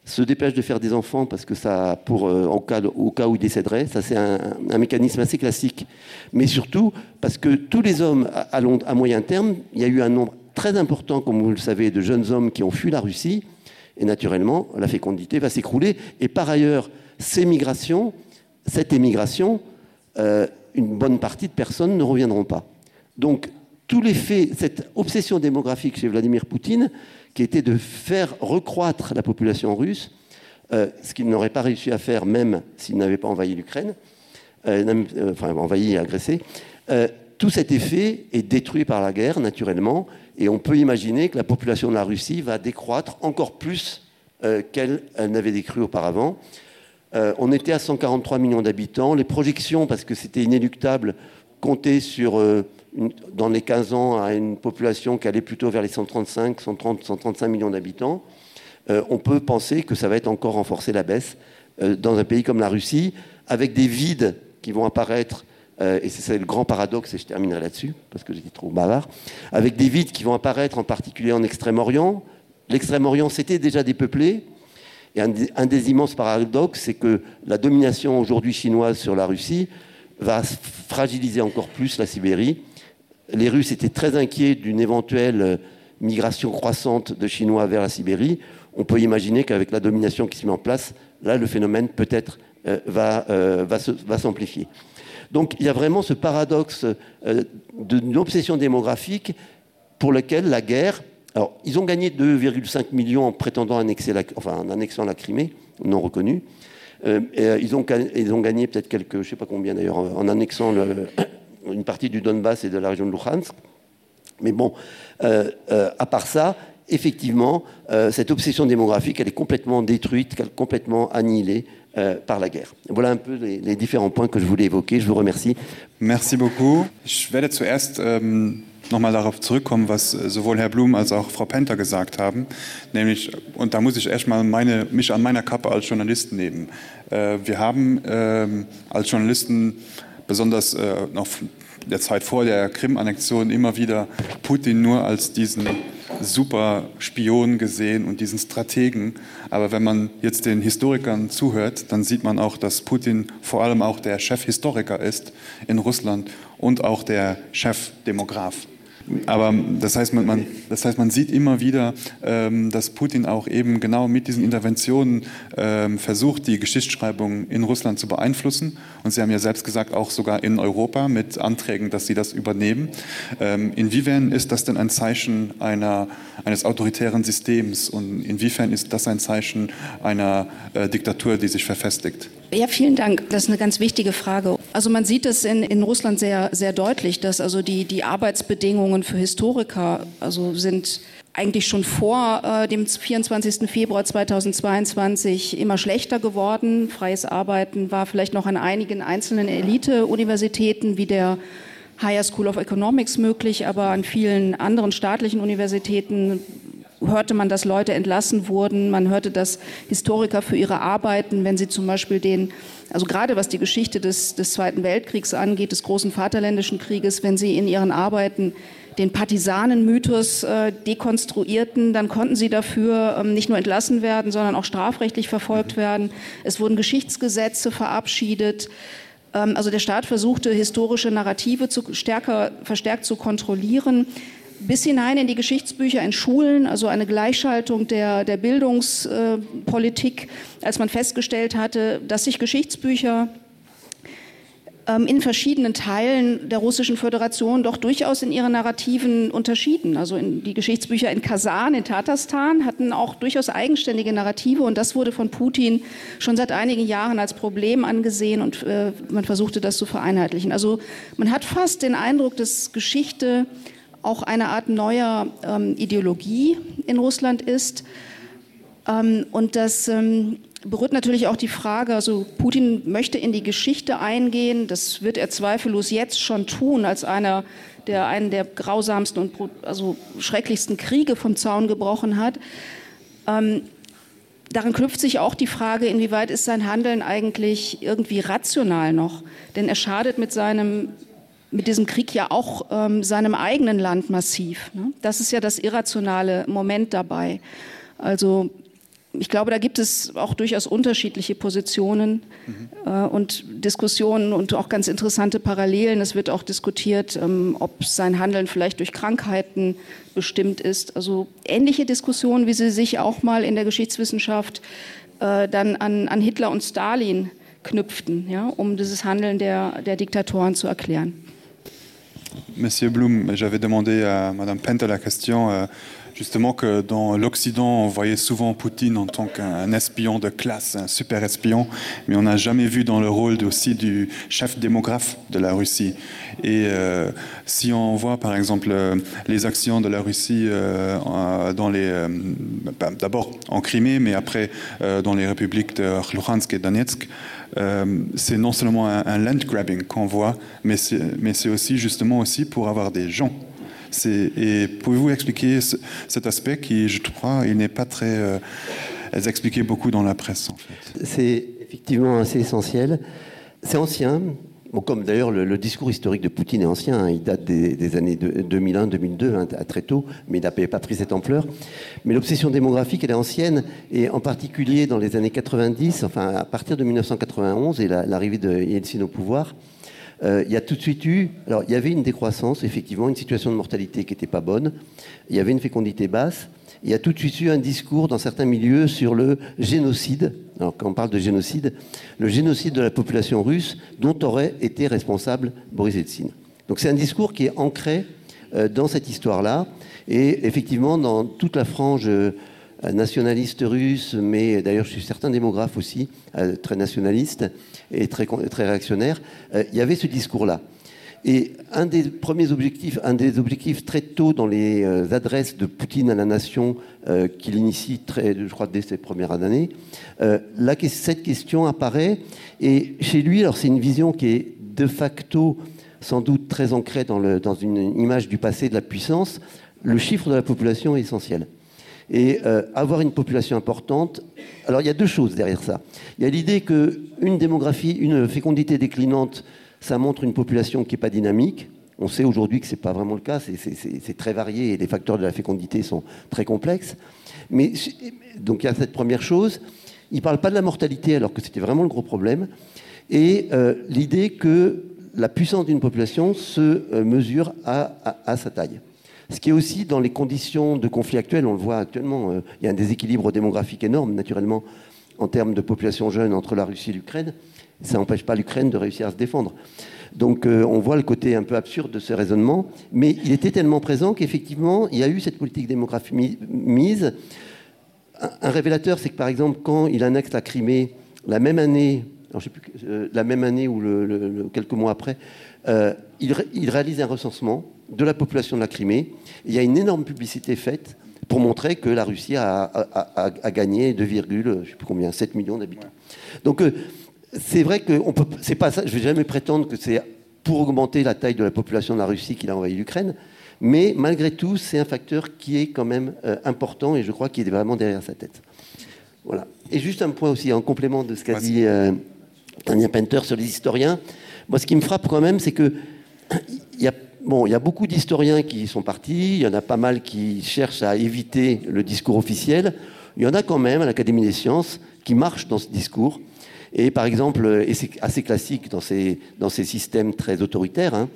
se dépêchent de faire des enfants parce que ça pour euh, en cas au cas où ils décéderaient ça c'est un, un mécanisme assez classique mais surtout parce que tous les hommes à, à, long, à moyen terme il y a eu un nombre très important comme vous le savez de jeunes hommes qui ont fui la Russie et naturellement la fécondité va s'écrouler et par ailleurs ces migrations cette émigration euh, une bonne partie de personnes ne reviendront pas donc tous les faits cette obsession démographique chez Vladimir Poutine qui était de faire recroître la population russe euh, ce qu'il n'aurait pas réussi à faire même s'il n'avait pas envahi l'Ukraine euh, euh, enfin envahi et agressé euh, tout cet effet est détruit par la guerre naturellement et on peut imaginer que la population de la Russie va décroître encore plus euh, qu'elle n'avait décru auparavant. Euh, on était à 143 millions d'habitants. Les projections, parce que c'était inéluctable, comptaient sur euh, une, dans les 15 ans à une population qui allait plutôt vers les 135, 130, 135 millions d'habitants. Euh, on peut penser que ça va être encore renforcé la baisse euh, dans un pays comme la Russie, avec des vides qui vont apparaître euh, et c'est le grand paradoxe et je terminerai là-dessus parce que j'étais trop bavard, avec des vides qui vont apparaître en particulier en Extrême-Orient. L'Extrême-Orient s'était déjà dépeuplé. Et un, un des immenses paradoxes, c'est que la domination aujourd'hui chinoise sur la Russie va fragiliser encore plus la Sibérie. Les Russes étaient très inquiets d'une éventuelle euh, migration croissante de Chinois vers la Sibérie. On peut imaginer qu'avec la domination qui se met en place, là, le phénomène peut-être euh, va, euh, va, va s'amplifier. Donc il y a vraiment ce paradoxe euh, d'une obsession démographique pour lequel la guerre alors ils ont gagné 2,5 millions en prétendant annexer la, enfin, en annexant la Crimée non reconnue. Euh, et, euh, ils ont, ils ont gagné peut-être quelques je sais pas combien d'ailleurs en, en annexant le, une partie du Donbass et de la région de Luhansk. Mais bon euh, euh, à part ça, effectivement, euh, cette obsession démographique elle est complètement détruite, complètement annihilée euh, par la guerre. Voilà un peu les, les différents points que je voulais évoquer. Je vous remercie. Merci beaucoup. Ich werde zuerst ähm, noch mal darauf zurückkommen, was äh, sowohl Herr Blum als auch Frau Penter gesagt haben, nämlich und da muss ich erstmal meine, mich an meiner Kappe als Journalist nehmen. Äh, wir haben äh, als Journalisten besonders äh, noch der Zeit vor der Krim-Annexion immer wieder Putin nur als diesen super Spion gesehen und diesen Strategen. Aber wenn man jetzt den Historikern zuhört, dann sieht man auch, dass Putin vor allem auch der Chefhistoriker ist in Russland und auch der Chefdemograf. Aber das heißt, man, man, das heißt, man sieht immer wieder, ähm, dass Putin auch eben genau mit diesen Interventionen ähm, versucht, die Geschichtsschreibung in Russland zu beeinflussen. Und Sie haben ja selbst gesagt, auch sogar in Europa mit Anträgen, dass sie das übernehmen. Ähm, inwiefern ist das denn ein Zeichen einer, eines autoritären Systems und inwiefern ist das ein Zeichen einer äh, Diktatur, die sich verfestigt? Ja, vielen Dank. Das ist eine ganz wichtige Frage. Also man sieht es in, in Russland sehr, sehr deutlich, dass also die, die Arbeitsbedingungen für Historiker also sind eigentlich schon vor äh, dem 24. Februar 2022 immer schlechter geworden. Freies Arbeiten war vielleicht noch an einigen einzelnen Elite-Universitäten wie der Higher School of Economics möglich, aber an vielen anderen staatlichen Universitäten hörte man, dass Leute entlassen wurden. Man hörte, dass Historiker für ihre Arbeiten, wenn sie zum Beispiel den, also gerade was die Geschichte des, des Zweiten Weltkriegs angeht, des großen Vaterländischen Krieges, wenn sie in ihren Arbeiten den Partisanenmythos äh, dekonstruierten, dann konnten sie dafür ähm, nicht nur entlassen werden, sondern auch strafrechtlich verfolgt mhm. werden. Es wurden Geschichtsgesetze verabschiedet. Ähm, also der Staat versuchte, historische Narrative zu, stärker, verstärkt zu kontrollieren bis hinein in die Geschichtsbücher in Schulen, also eine Gleichschaltung der, der Bildungspolitik, als man festgestellt hatte, dass sich Geschichtsbücher ähm, in verschiedenen Teilen der russischen Föderation doch durchaus in ihren Narrativen unterschieden. Also in die Geschichtsbücher in Kasan, in Tatarstan hatten auch durchaus eigenständige Narrative und das wurde von Putin schon seit einigen Jahren als Problem angesehen und äh, man versuchte das zu vereinheitlichen. Also man hat fast den Eindruck, dass Geschichte auch eine Art neuer ähm, Ideologie in Russland ist. Ähm, und das ähm, berührt natürlich auch die Frage, also Putin möchte in die Geschichte eingehen, das wird er zweifellos jetzt schon tun, als einer, der einen der grausamsten und also schrecklichsten Kriege vom Zaun gebrochen hat. Ähm, daran knüpft sich auch die Frage, inwieweit ist sein Handeln eigentlich irgendwie rational noch? Denn er schadet mit seinem mit diesem Krieg ja auch ähm, seinem eigenen Land massiv. Ne? Das ist ja das irrationale Moment dabei. Also ich glaube, da gibt es auch durchaus unterschiedliche Positionen mhm. äh, und Diskussionen und auch ganz interessante Parallelen. Es wird auch diskutiert, ähm, ob sein Handeln vielleicht durch Krankheiten bestimmt ist. Also ähnliche Diskussionen, wie sie sich auch mal in der Geschichtswissenschaft äh, dann an, an Hitler und Stalin knüpften, ja, um dieses Handeln der, der Diktatoren zu erklären. Monsieur Blum, j'avais demandé à Madame Penter la question euh, Justement que dans l'Occident, on voyait souvent Poutine en tant qu'un espion de classe, un super espion, mais on n'a jamais vu dans le rôle aussi du chef démographe de la Russie. Et euh, si on voit par exemple euh, les actions de la Russie euh, dans les euh, d'abord en Crimée, mais après euh, dans les républiques de Luhansk et Donetsk, euh, c'est non seulement un, un land grabbing qu'on voit, mais c'est aussi justement aussi pour avoir des gens. Et pouvez-vous expliquer ce, cet aspect qui, je crois, il n'est pas très euh, expliqué beaucoup dans la presse en fait. C'est effectivement assez essentiel. C'est ancien, bon, comme d'ailleurs le, le discours historique de Poutine est ancien, hein, il date des, des années de, 2001, 2002 hein, à très tôt, mais il n'avait pas pris cette ampleur. Mais l'obsession démographique, elle est ancienne, et en particulier dans les années 90, enfin à partir de 1991 et l'arrivée la, de Yeltsin au pouvoir, euh, il y a tout de suite eu alors il y avait une décroissance effectivement une situation de mortalité qui n'était pas bonne il y avait une fécondité basse il y a tout de suite eu un discours dans certains milieux sur le génocide alors quand on parle de génocide le génocide de la population russe dont aurait été responsable Boris Eltsine donc c'est un discours qui est ancré euh, dans cette histoire là et effectivement dans toute la frange euh, nationaliste russe mais d'ailleurs je suis certain démographe aussi euh, très nationaliste et très très réactionnaire euh, il y avait ce discours là et un des premiers objectifs un des objectifs très tôt dans les euh, adresses de Poutine à la nation euh, qu'il initie très je crois dès ses premières années euh, là cette question apparaît et chez lui alors c'est une vision qui est de facto sans doute très ancrée dans le dans une image du passé de la puissance le chiffre de la population est essentiel et euh, avoir une population importante alors il y a deux choses derrière ça il y a l'idée que une démographie une fécondité déclinante ça montre une population qui est pas dynamique on sait aujourd'hui que c'est pas vraiment le cas c'est très varié et les facteurs de la fécondité sont très complexes mais donc il y a cette première chose il parle pas de la mortalité alors que c'était vraiment le gros problème et euh, l'idée que la puissance d'une population se euh, mesure à, à, à sa taille Ce qui est aussi dans les conditions de conflit actuel, on le voit actuellement, euh, il y a un déséquilibre démographique énorme naturellement en termes de population jeune entre la Russie et l'Ukraine. Ça n'empêche pas l'Ukraine de réussir à se défendre. Donc euh, on voit le côté un peu absurde de ce raisonnement, mais il était tellement présent qu'effectivement il y a eu cette politique démographique mise. Un, un révélateur, c'est que par exemple quand il annexe la Crimée la même année, alors, je sais plus, euh, la même année ou le, le, le, quelques mois après, euh, il, il réalise un recensement de la population de la Crimée. Il y a une énorme publicité faite pour montrer que la Russie a, a, a, a gagné 2, je sais plus combien 7 millions d'habitants. Donc euh, c'est vrai que on peut c'est pas ça, je vais jamais prétendre que c'est pour augmenter la taille de la population de la Russie qu'il a envahi l'Ukraine, mais malgré tout, c'est un facteur qui est quand même euh, important et je crois qu'il est vraiment derrière sa tête. Voilà. Et juste un point aussi en complément de ce qu'a dit euh, Tania Penter sur les historiens. Moi, ce qui me frappe quand même, c'est que il y a Bon, il y a beaucoup d'historiens qui sont partis, il y en a pas mal qui cherchent à éviter le discours officiel. Il y en a quand même à l'Académie des sciences qui marchent dans ce discours. Et par exemple, et c'est assez classique dans ces, dans ces systèmes très autoritaires, hein,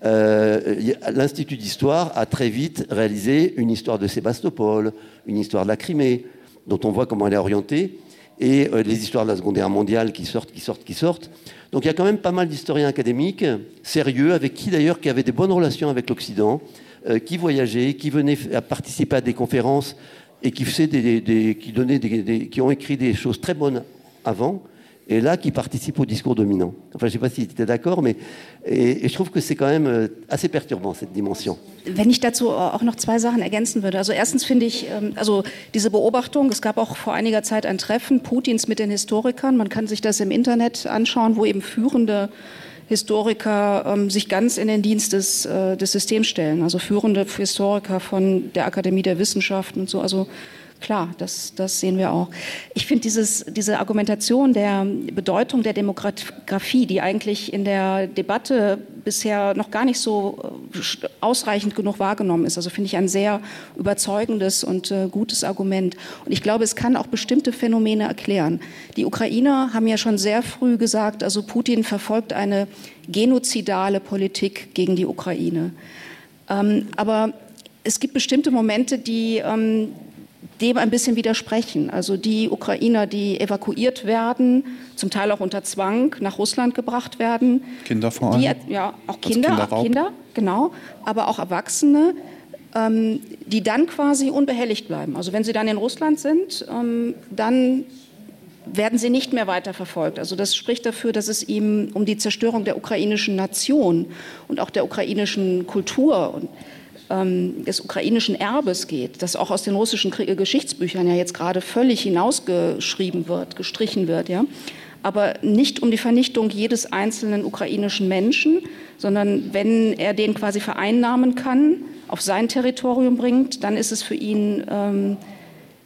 euh, l'Institut d'histoire a très vite réalisé une histoire de Sébastopol, une histoire de la Crimée, dont on voit comment elle est orientée, et euh, les histoires de la Seconde Guerre mondiale qui sortent, qui sortent, qui sortent. Donc il y a quand même pas mal d'historiens académiques sérieux, avec qui d'ailleurs qui avaient des bonnes relations avec l'Occident, euh, qui voyageaient, qui venaient à participer à des conférences et qui faisaient des, des, qui donnaient des, des, qui ont écrit des choses très bonnes avant et là qui participent au discours dominant. Enfin je sais pas si tu étais d'accord, mais et, et je trouve que c'est quand même euh, assez perturbant cette dimension. Wenn ich dazu auch noch zwei Sachen ergänzen würde. Also erstens finde ich ähm, also diese Beobachtung, es gab auch vor einiger Zeit ein Treffen Putins mit den Historikern. Man kann sich das im Internet anschauen, wo eben führende Historiker ähm, sich ganz in den Dienst des, äh, des Systems stellen, also führende Historiker von der Akademie der Wissenschaften und so. Also klar, das, das sehen wir auch. Ich finde dieses, diese Argumentation der Bedeutung der Demografie, die eigentlich in der Debatte bisher noch gar nicht so äh, ausreichend genug wahrgenommen ist, also finde ich ein sehr überzeugendes und äh, gutes Argument. Und ich glaube, es kann auch bestimmte Phänomene erklären. Die Ukrainer haben ja schon sehr früh gesagt, also Putin verfolgt eine genozidale Politik gegen die Ukraine. Ähm, aber es gibt bestimmte Momente, die, ähm, dem ein bisschen widersprechen. Also die Ukrainer, die evakuiert werden, zum Teil auch unter Zwang nach Russland gebracht werden. Kinder vor allem. Die, ja, auch Kinder, Kinder, genau, aber auch Erwachsene. ähm, die dann quasi unbehelligt bleiben. Also wenn sie dann in Russland sind, ähm, dann werden sie nicht mehr weiter verfolgt. Also das spricht dafür, dass es ihm um die Zerstörung der ukrainischen Nation und auch der ukrainischen Kultur und ähm, des ukrainischen Erbes geht, das auch aus den russischen Geschichtsbüchern ja jetzt gerade völlig hinausgeschrieben wird, gestrichen wird. Ja? Aber nicht um die Vernichtung jedes einzelnen ukrainischen Menschen, sondern wenn er den quasi vereinnahmen kann, auf sein Territorium bringt, dann ist es für ihn, ähm,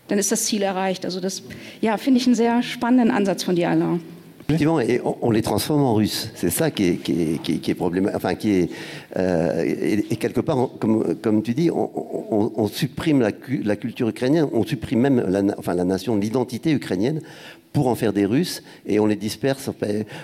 dann ist das Ziel erreicht. Also das ja, finde ich einen sehr spannenden Ansatz von dir, Alain. Effectivement, et on, on les transforme en russes. C'est ça qui est, qui est, qui est, qui est problématique. Enfin, qui est, euh, et, et quelque part, on, comme, comme tu dis, on, on, on supprime la, la culture ukrainienne, on supprime même la, enfin, la nation, l'identité ukrainienne pour en faire des Russes et on les disperse.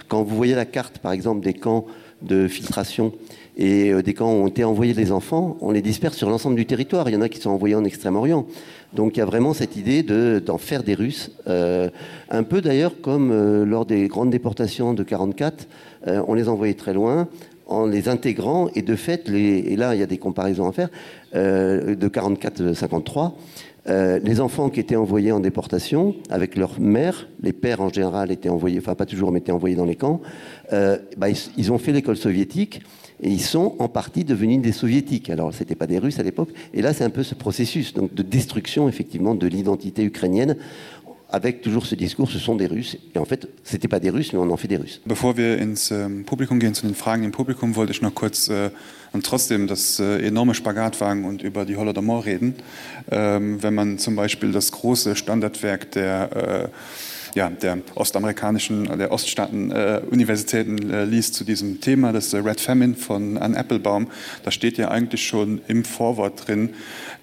Quand vous voyez la carte, par exemple, des camps de filtration et euh, des camps où ont été envoyés les enfants, on les disperse sur l'ensemble du territoire. Il y en a qui sont envoyés en Extrême-Orient. Donc il y a vraiment cette idée d'en de, faire des Russes, euh, un peu d'ailleurs comme euh, lors des grandes déportations de 44, euh, on les envoyait très loin en les intégrant et de fait les, et là il y a des comparaisons à faire euh, de 44 53 euh, les enfants qui étaient envoyés en déportation avec leur mère les pères en général étaient envoyés enfin pas toujours mais étaient envoyés dans les camps euh, bah, ils, ils ont fait l'école soviétique et ils sont en partie devenus des soviétiques alors c'était pas des russes à l'époque et là c'est un peu ce processus donc de destruction effectivement de l'identité ukrainienne avec toujours ce discours ce sont des russes et en fait c'était pas des russes mais on en fait des russes bevor wir ins ähm, publikum gehen zu den fragen im publikum wollte ich noch kurz äh, und trotzdem das äh, enorme spagat wagen und über die holodomor reden ähm, wenn man zum beispiel das große standardwerk der äh, ja, der ostamerikanischen der Oststaaten äh, Universitäten äh, liest zu diesem Thema das äh, Red Famine von Ann Applebaum da steht ja eigentlich schon im Vorwort drin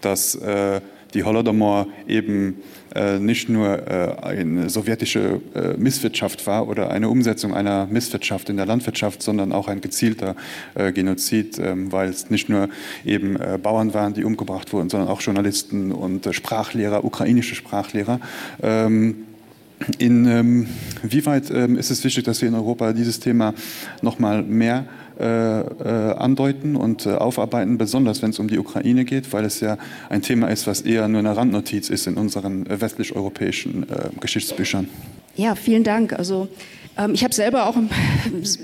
dass äh, die Holodomor eben äh, nicht nur äh, eine sowjetische äh, Misswirtschaft war oder eine Umsetzung einer Misswirtschaft in der Landwirtschaft, sondern auch ein gezielter äh, Genozid, äh, weil es nicht nur eben äh, Bauern waren, die umgebracht wurden, sondern auch Journalisten und äh, Sprachlehrer, ukrainische Sprachlehrer. Ähm, In ähm, wie weit ähm, ist es wichtig, dass wir in Europa dieses Thema noch mal mehr äh, äh, andeuten und äh, aufarbeiten, besonders wenn es um die Ukraine geht, weil es ja ein Thema ist, was eher nur eine Randnotiz ist in unseren äh, westlich-europäischen äh, Geschichtsbüchern. Ja, vielen Dank. Also ähm, ich habe selber auch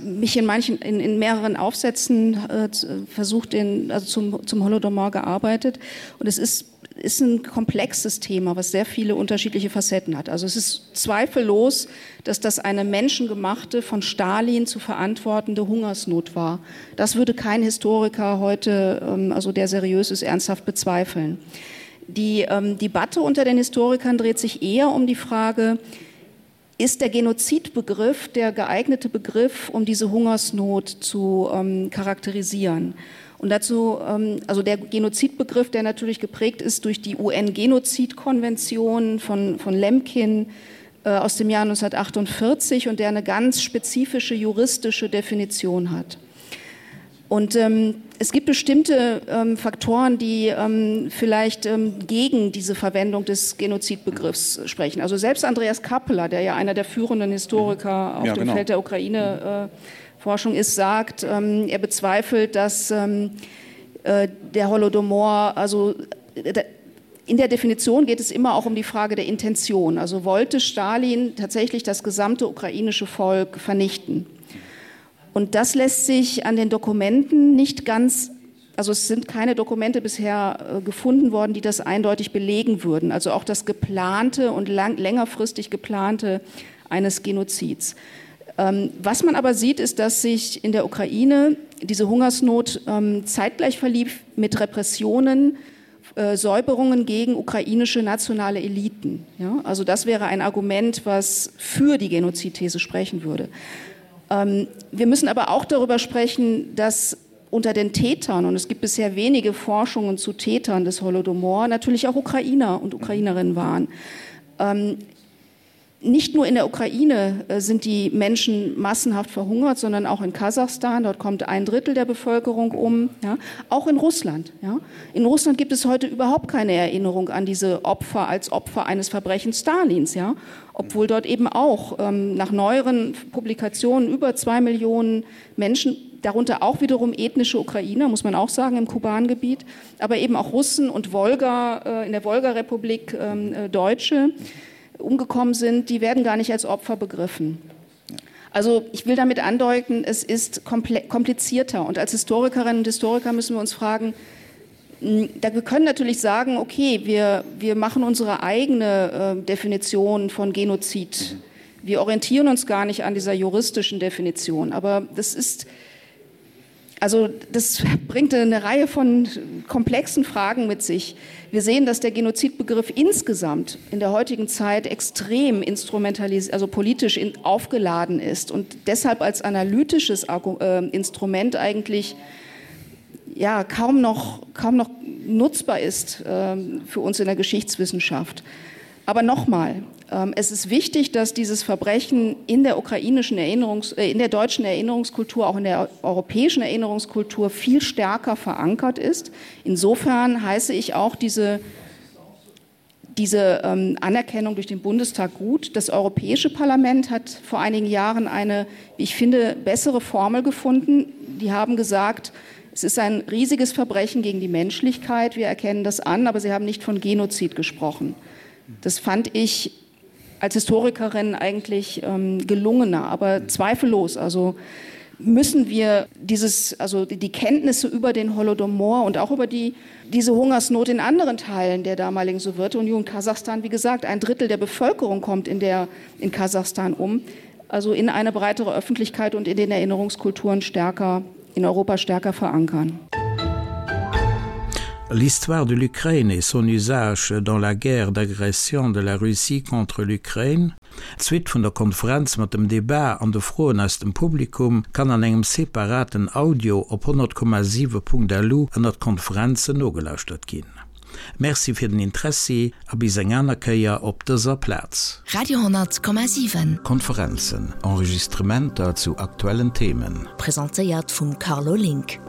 mich in manchen in, in mehreren Aufsätzen äh, versucht den, also zum, zum Holodomor gearbeitet und es ist ist ein komplexes Thema, was sehr viele unterschiedliche Facetten hat. Also es ist zweifellos, dass das eine menschengemachte, von Stalin zu verantwortende Hungersnot war. Das würde kein Historiker heute, ähm, also der seriös ist, ernsthaft bezweifeln. Die ähm, Debatte unter den Historikern dreht sich eher um die Frage, ist der Genozidbegriff der geeignete Begriff, um diese Hungersnot zu ähm, charakterisieren? Und dazu ähm, also der Genozidbegriff, der natürlich geprägt ist durch die UN-Genozidkonvention von, von Lemkin äh, aus dem Jahr 1948 und der eine ganz spezifische juristische Definition hat. Und ähm, es gibt bestimmte ähm, Faktoren, die ähm, vielleicht ähm, gegen diese Verwendung des Genozidbegriffs sprechen. Also selbst Andreas Kappeler, der ja einer der führenden Historiker auf ja, dem genau. Feld der Ukraine äh, Forschung ist, sagt, ähm, er bezweifelt, dass ähm, äh, der Holodomor, also äh, in der Definition geht es immer auch um die Frage der Intention. Also wollte Stalin tatsächlich das gesamte ukrainische Volk vernichten? Und das lässt sich an den Dokumenten nicht ganz, also es sind keine Dokumente bisher äh, gefunden worden, die das eindeutig belegen würden. Also auch das geplante und lang, längerfristig geplante eines Genozids. Ähm, was man aber sieht, ist, dass sich in der Ukraine diese Hungersnot ähm, zeitgleich verlief mit Repressionen, äh, Säuberungen gegen ukrainische nationale Eliten. Ja? Also das wäre ein Argument, was für die Genozidthese sprechen würde. Ähm, wir müssen aber auch darüber sprechen, dass unter den Tätern, und es gibt bisher wenige Forschungen zu Tätern des Holodomor, natürlich auch Ukrainer und Ukrainerinnen waren. Ähm, nicht nur in der Ukraine äh, sind die Menschen massenhaft verhungert, sondern auch in Kasachstan. Dort kommt ein Drittel der Bevölkerung um. Ja. Auch in Russland. Ja. In Russland gibt es heute überhaupt keine Erinnerung an diese Opfer als Opfer eines Verbrechens Stalins. Ja. Obwohl dort eben auch ähm, nach neueren Publikationen über zwei Millionen Menschen. darunter auch wiederum ethnische Ukrainer, muss man auch sagen, im Kubangebiet, aber eben auch Russen und Wolga äh, in der Wolgarepublik ähm, äh, Deutsche umgekommen sind, die werden gar nicht als Opfer begriffen. Also ich will damit andeuten, es ist komplizierter und als Historikerinnen und Historiker müssen wir uns fragen, hm, da wir können natürlich sagen, okay, wir, wir machen unsere eigene äh, Definition von Genozid. Mhm. Wir orientieren uns gar nicht an dieser juristischen Definition, aber das ist, also das bringt eine Reihe von komplexen Fragen mit sich. Wir sehen, dass der Genozidbegriff insgesamt in der heutigen Zeit extrem instrumentalisiert, also politisch in, aufgeladen ist und deshalb als analytisches äh, Instrument eigentlich ja, kaum noch, kaum noch nutzbar ist äh, für uns in der Geschichtswissenschaft. Aber nochmal, ähm, es ist wichtig, dass dieses Verbrechen in der ukrainischen Erinnerungs äh, in der deutschen Erinnerungskultur, auch in der europäischen Erinnerungskultur viel stärker verankert ist. Insofern heiße ich auch diese, diese ähm, Anerkennung durch den Bundestag gut. Das Europäische Parlament hat vor einigen Jahren eine, wie ich finde, bessere Formel gefunden. Die haben gesagt, es ist ein riesiges Verbrechen gegen die Menschlichkeit. Wir erkennen das an, aber sie haben nicht von Genozid gesprochen. Das fand ich als Historikerin eigentlich ähm, gelungener, aber zweifellos. Also müssen wir dieses, also die Kenntnisse über den Holodomor und auch über die, diese Hungersnot in anderen Teilen der damaligen Sowjetunion, Kasachstan, wie gesagt, ein Drittel der Bevölkerung kommt in, der, in Kasachstan um, also in eine breitere Öffentlichkeit und in den Erinnerungskulturen stärker, in Europa stärker verankern. L'histoire de l'Ukraine et son usage dans la guerre d'agression de la Russie contre l'Ukraine. D'Suite vun der Konferenz mat dem Debat an de Froen aus dem Publikum kann an engem separaten Audio op 100,7.lu ënnert Konferenzen nogelauschtert ginn. Merci fir den Interessi a bis eng aner Kéier op dëser Plaz. Radio 10,7. Konferenzen, Enregistrementer zu aktuellen Themen. Presentéiert vum Carlo Link.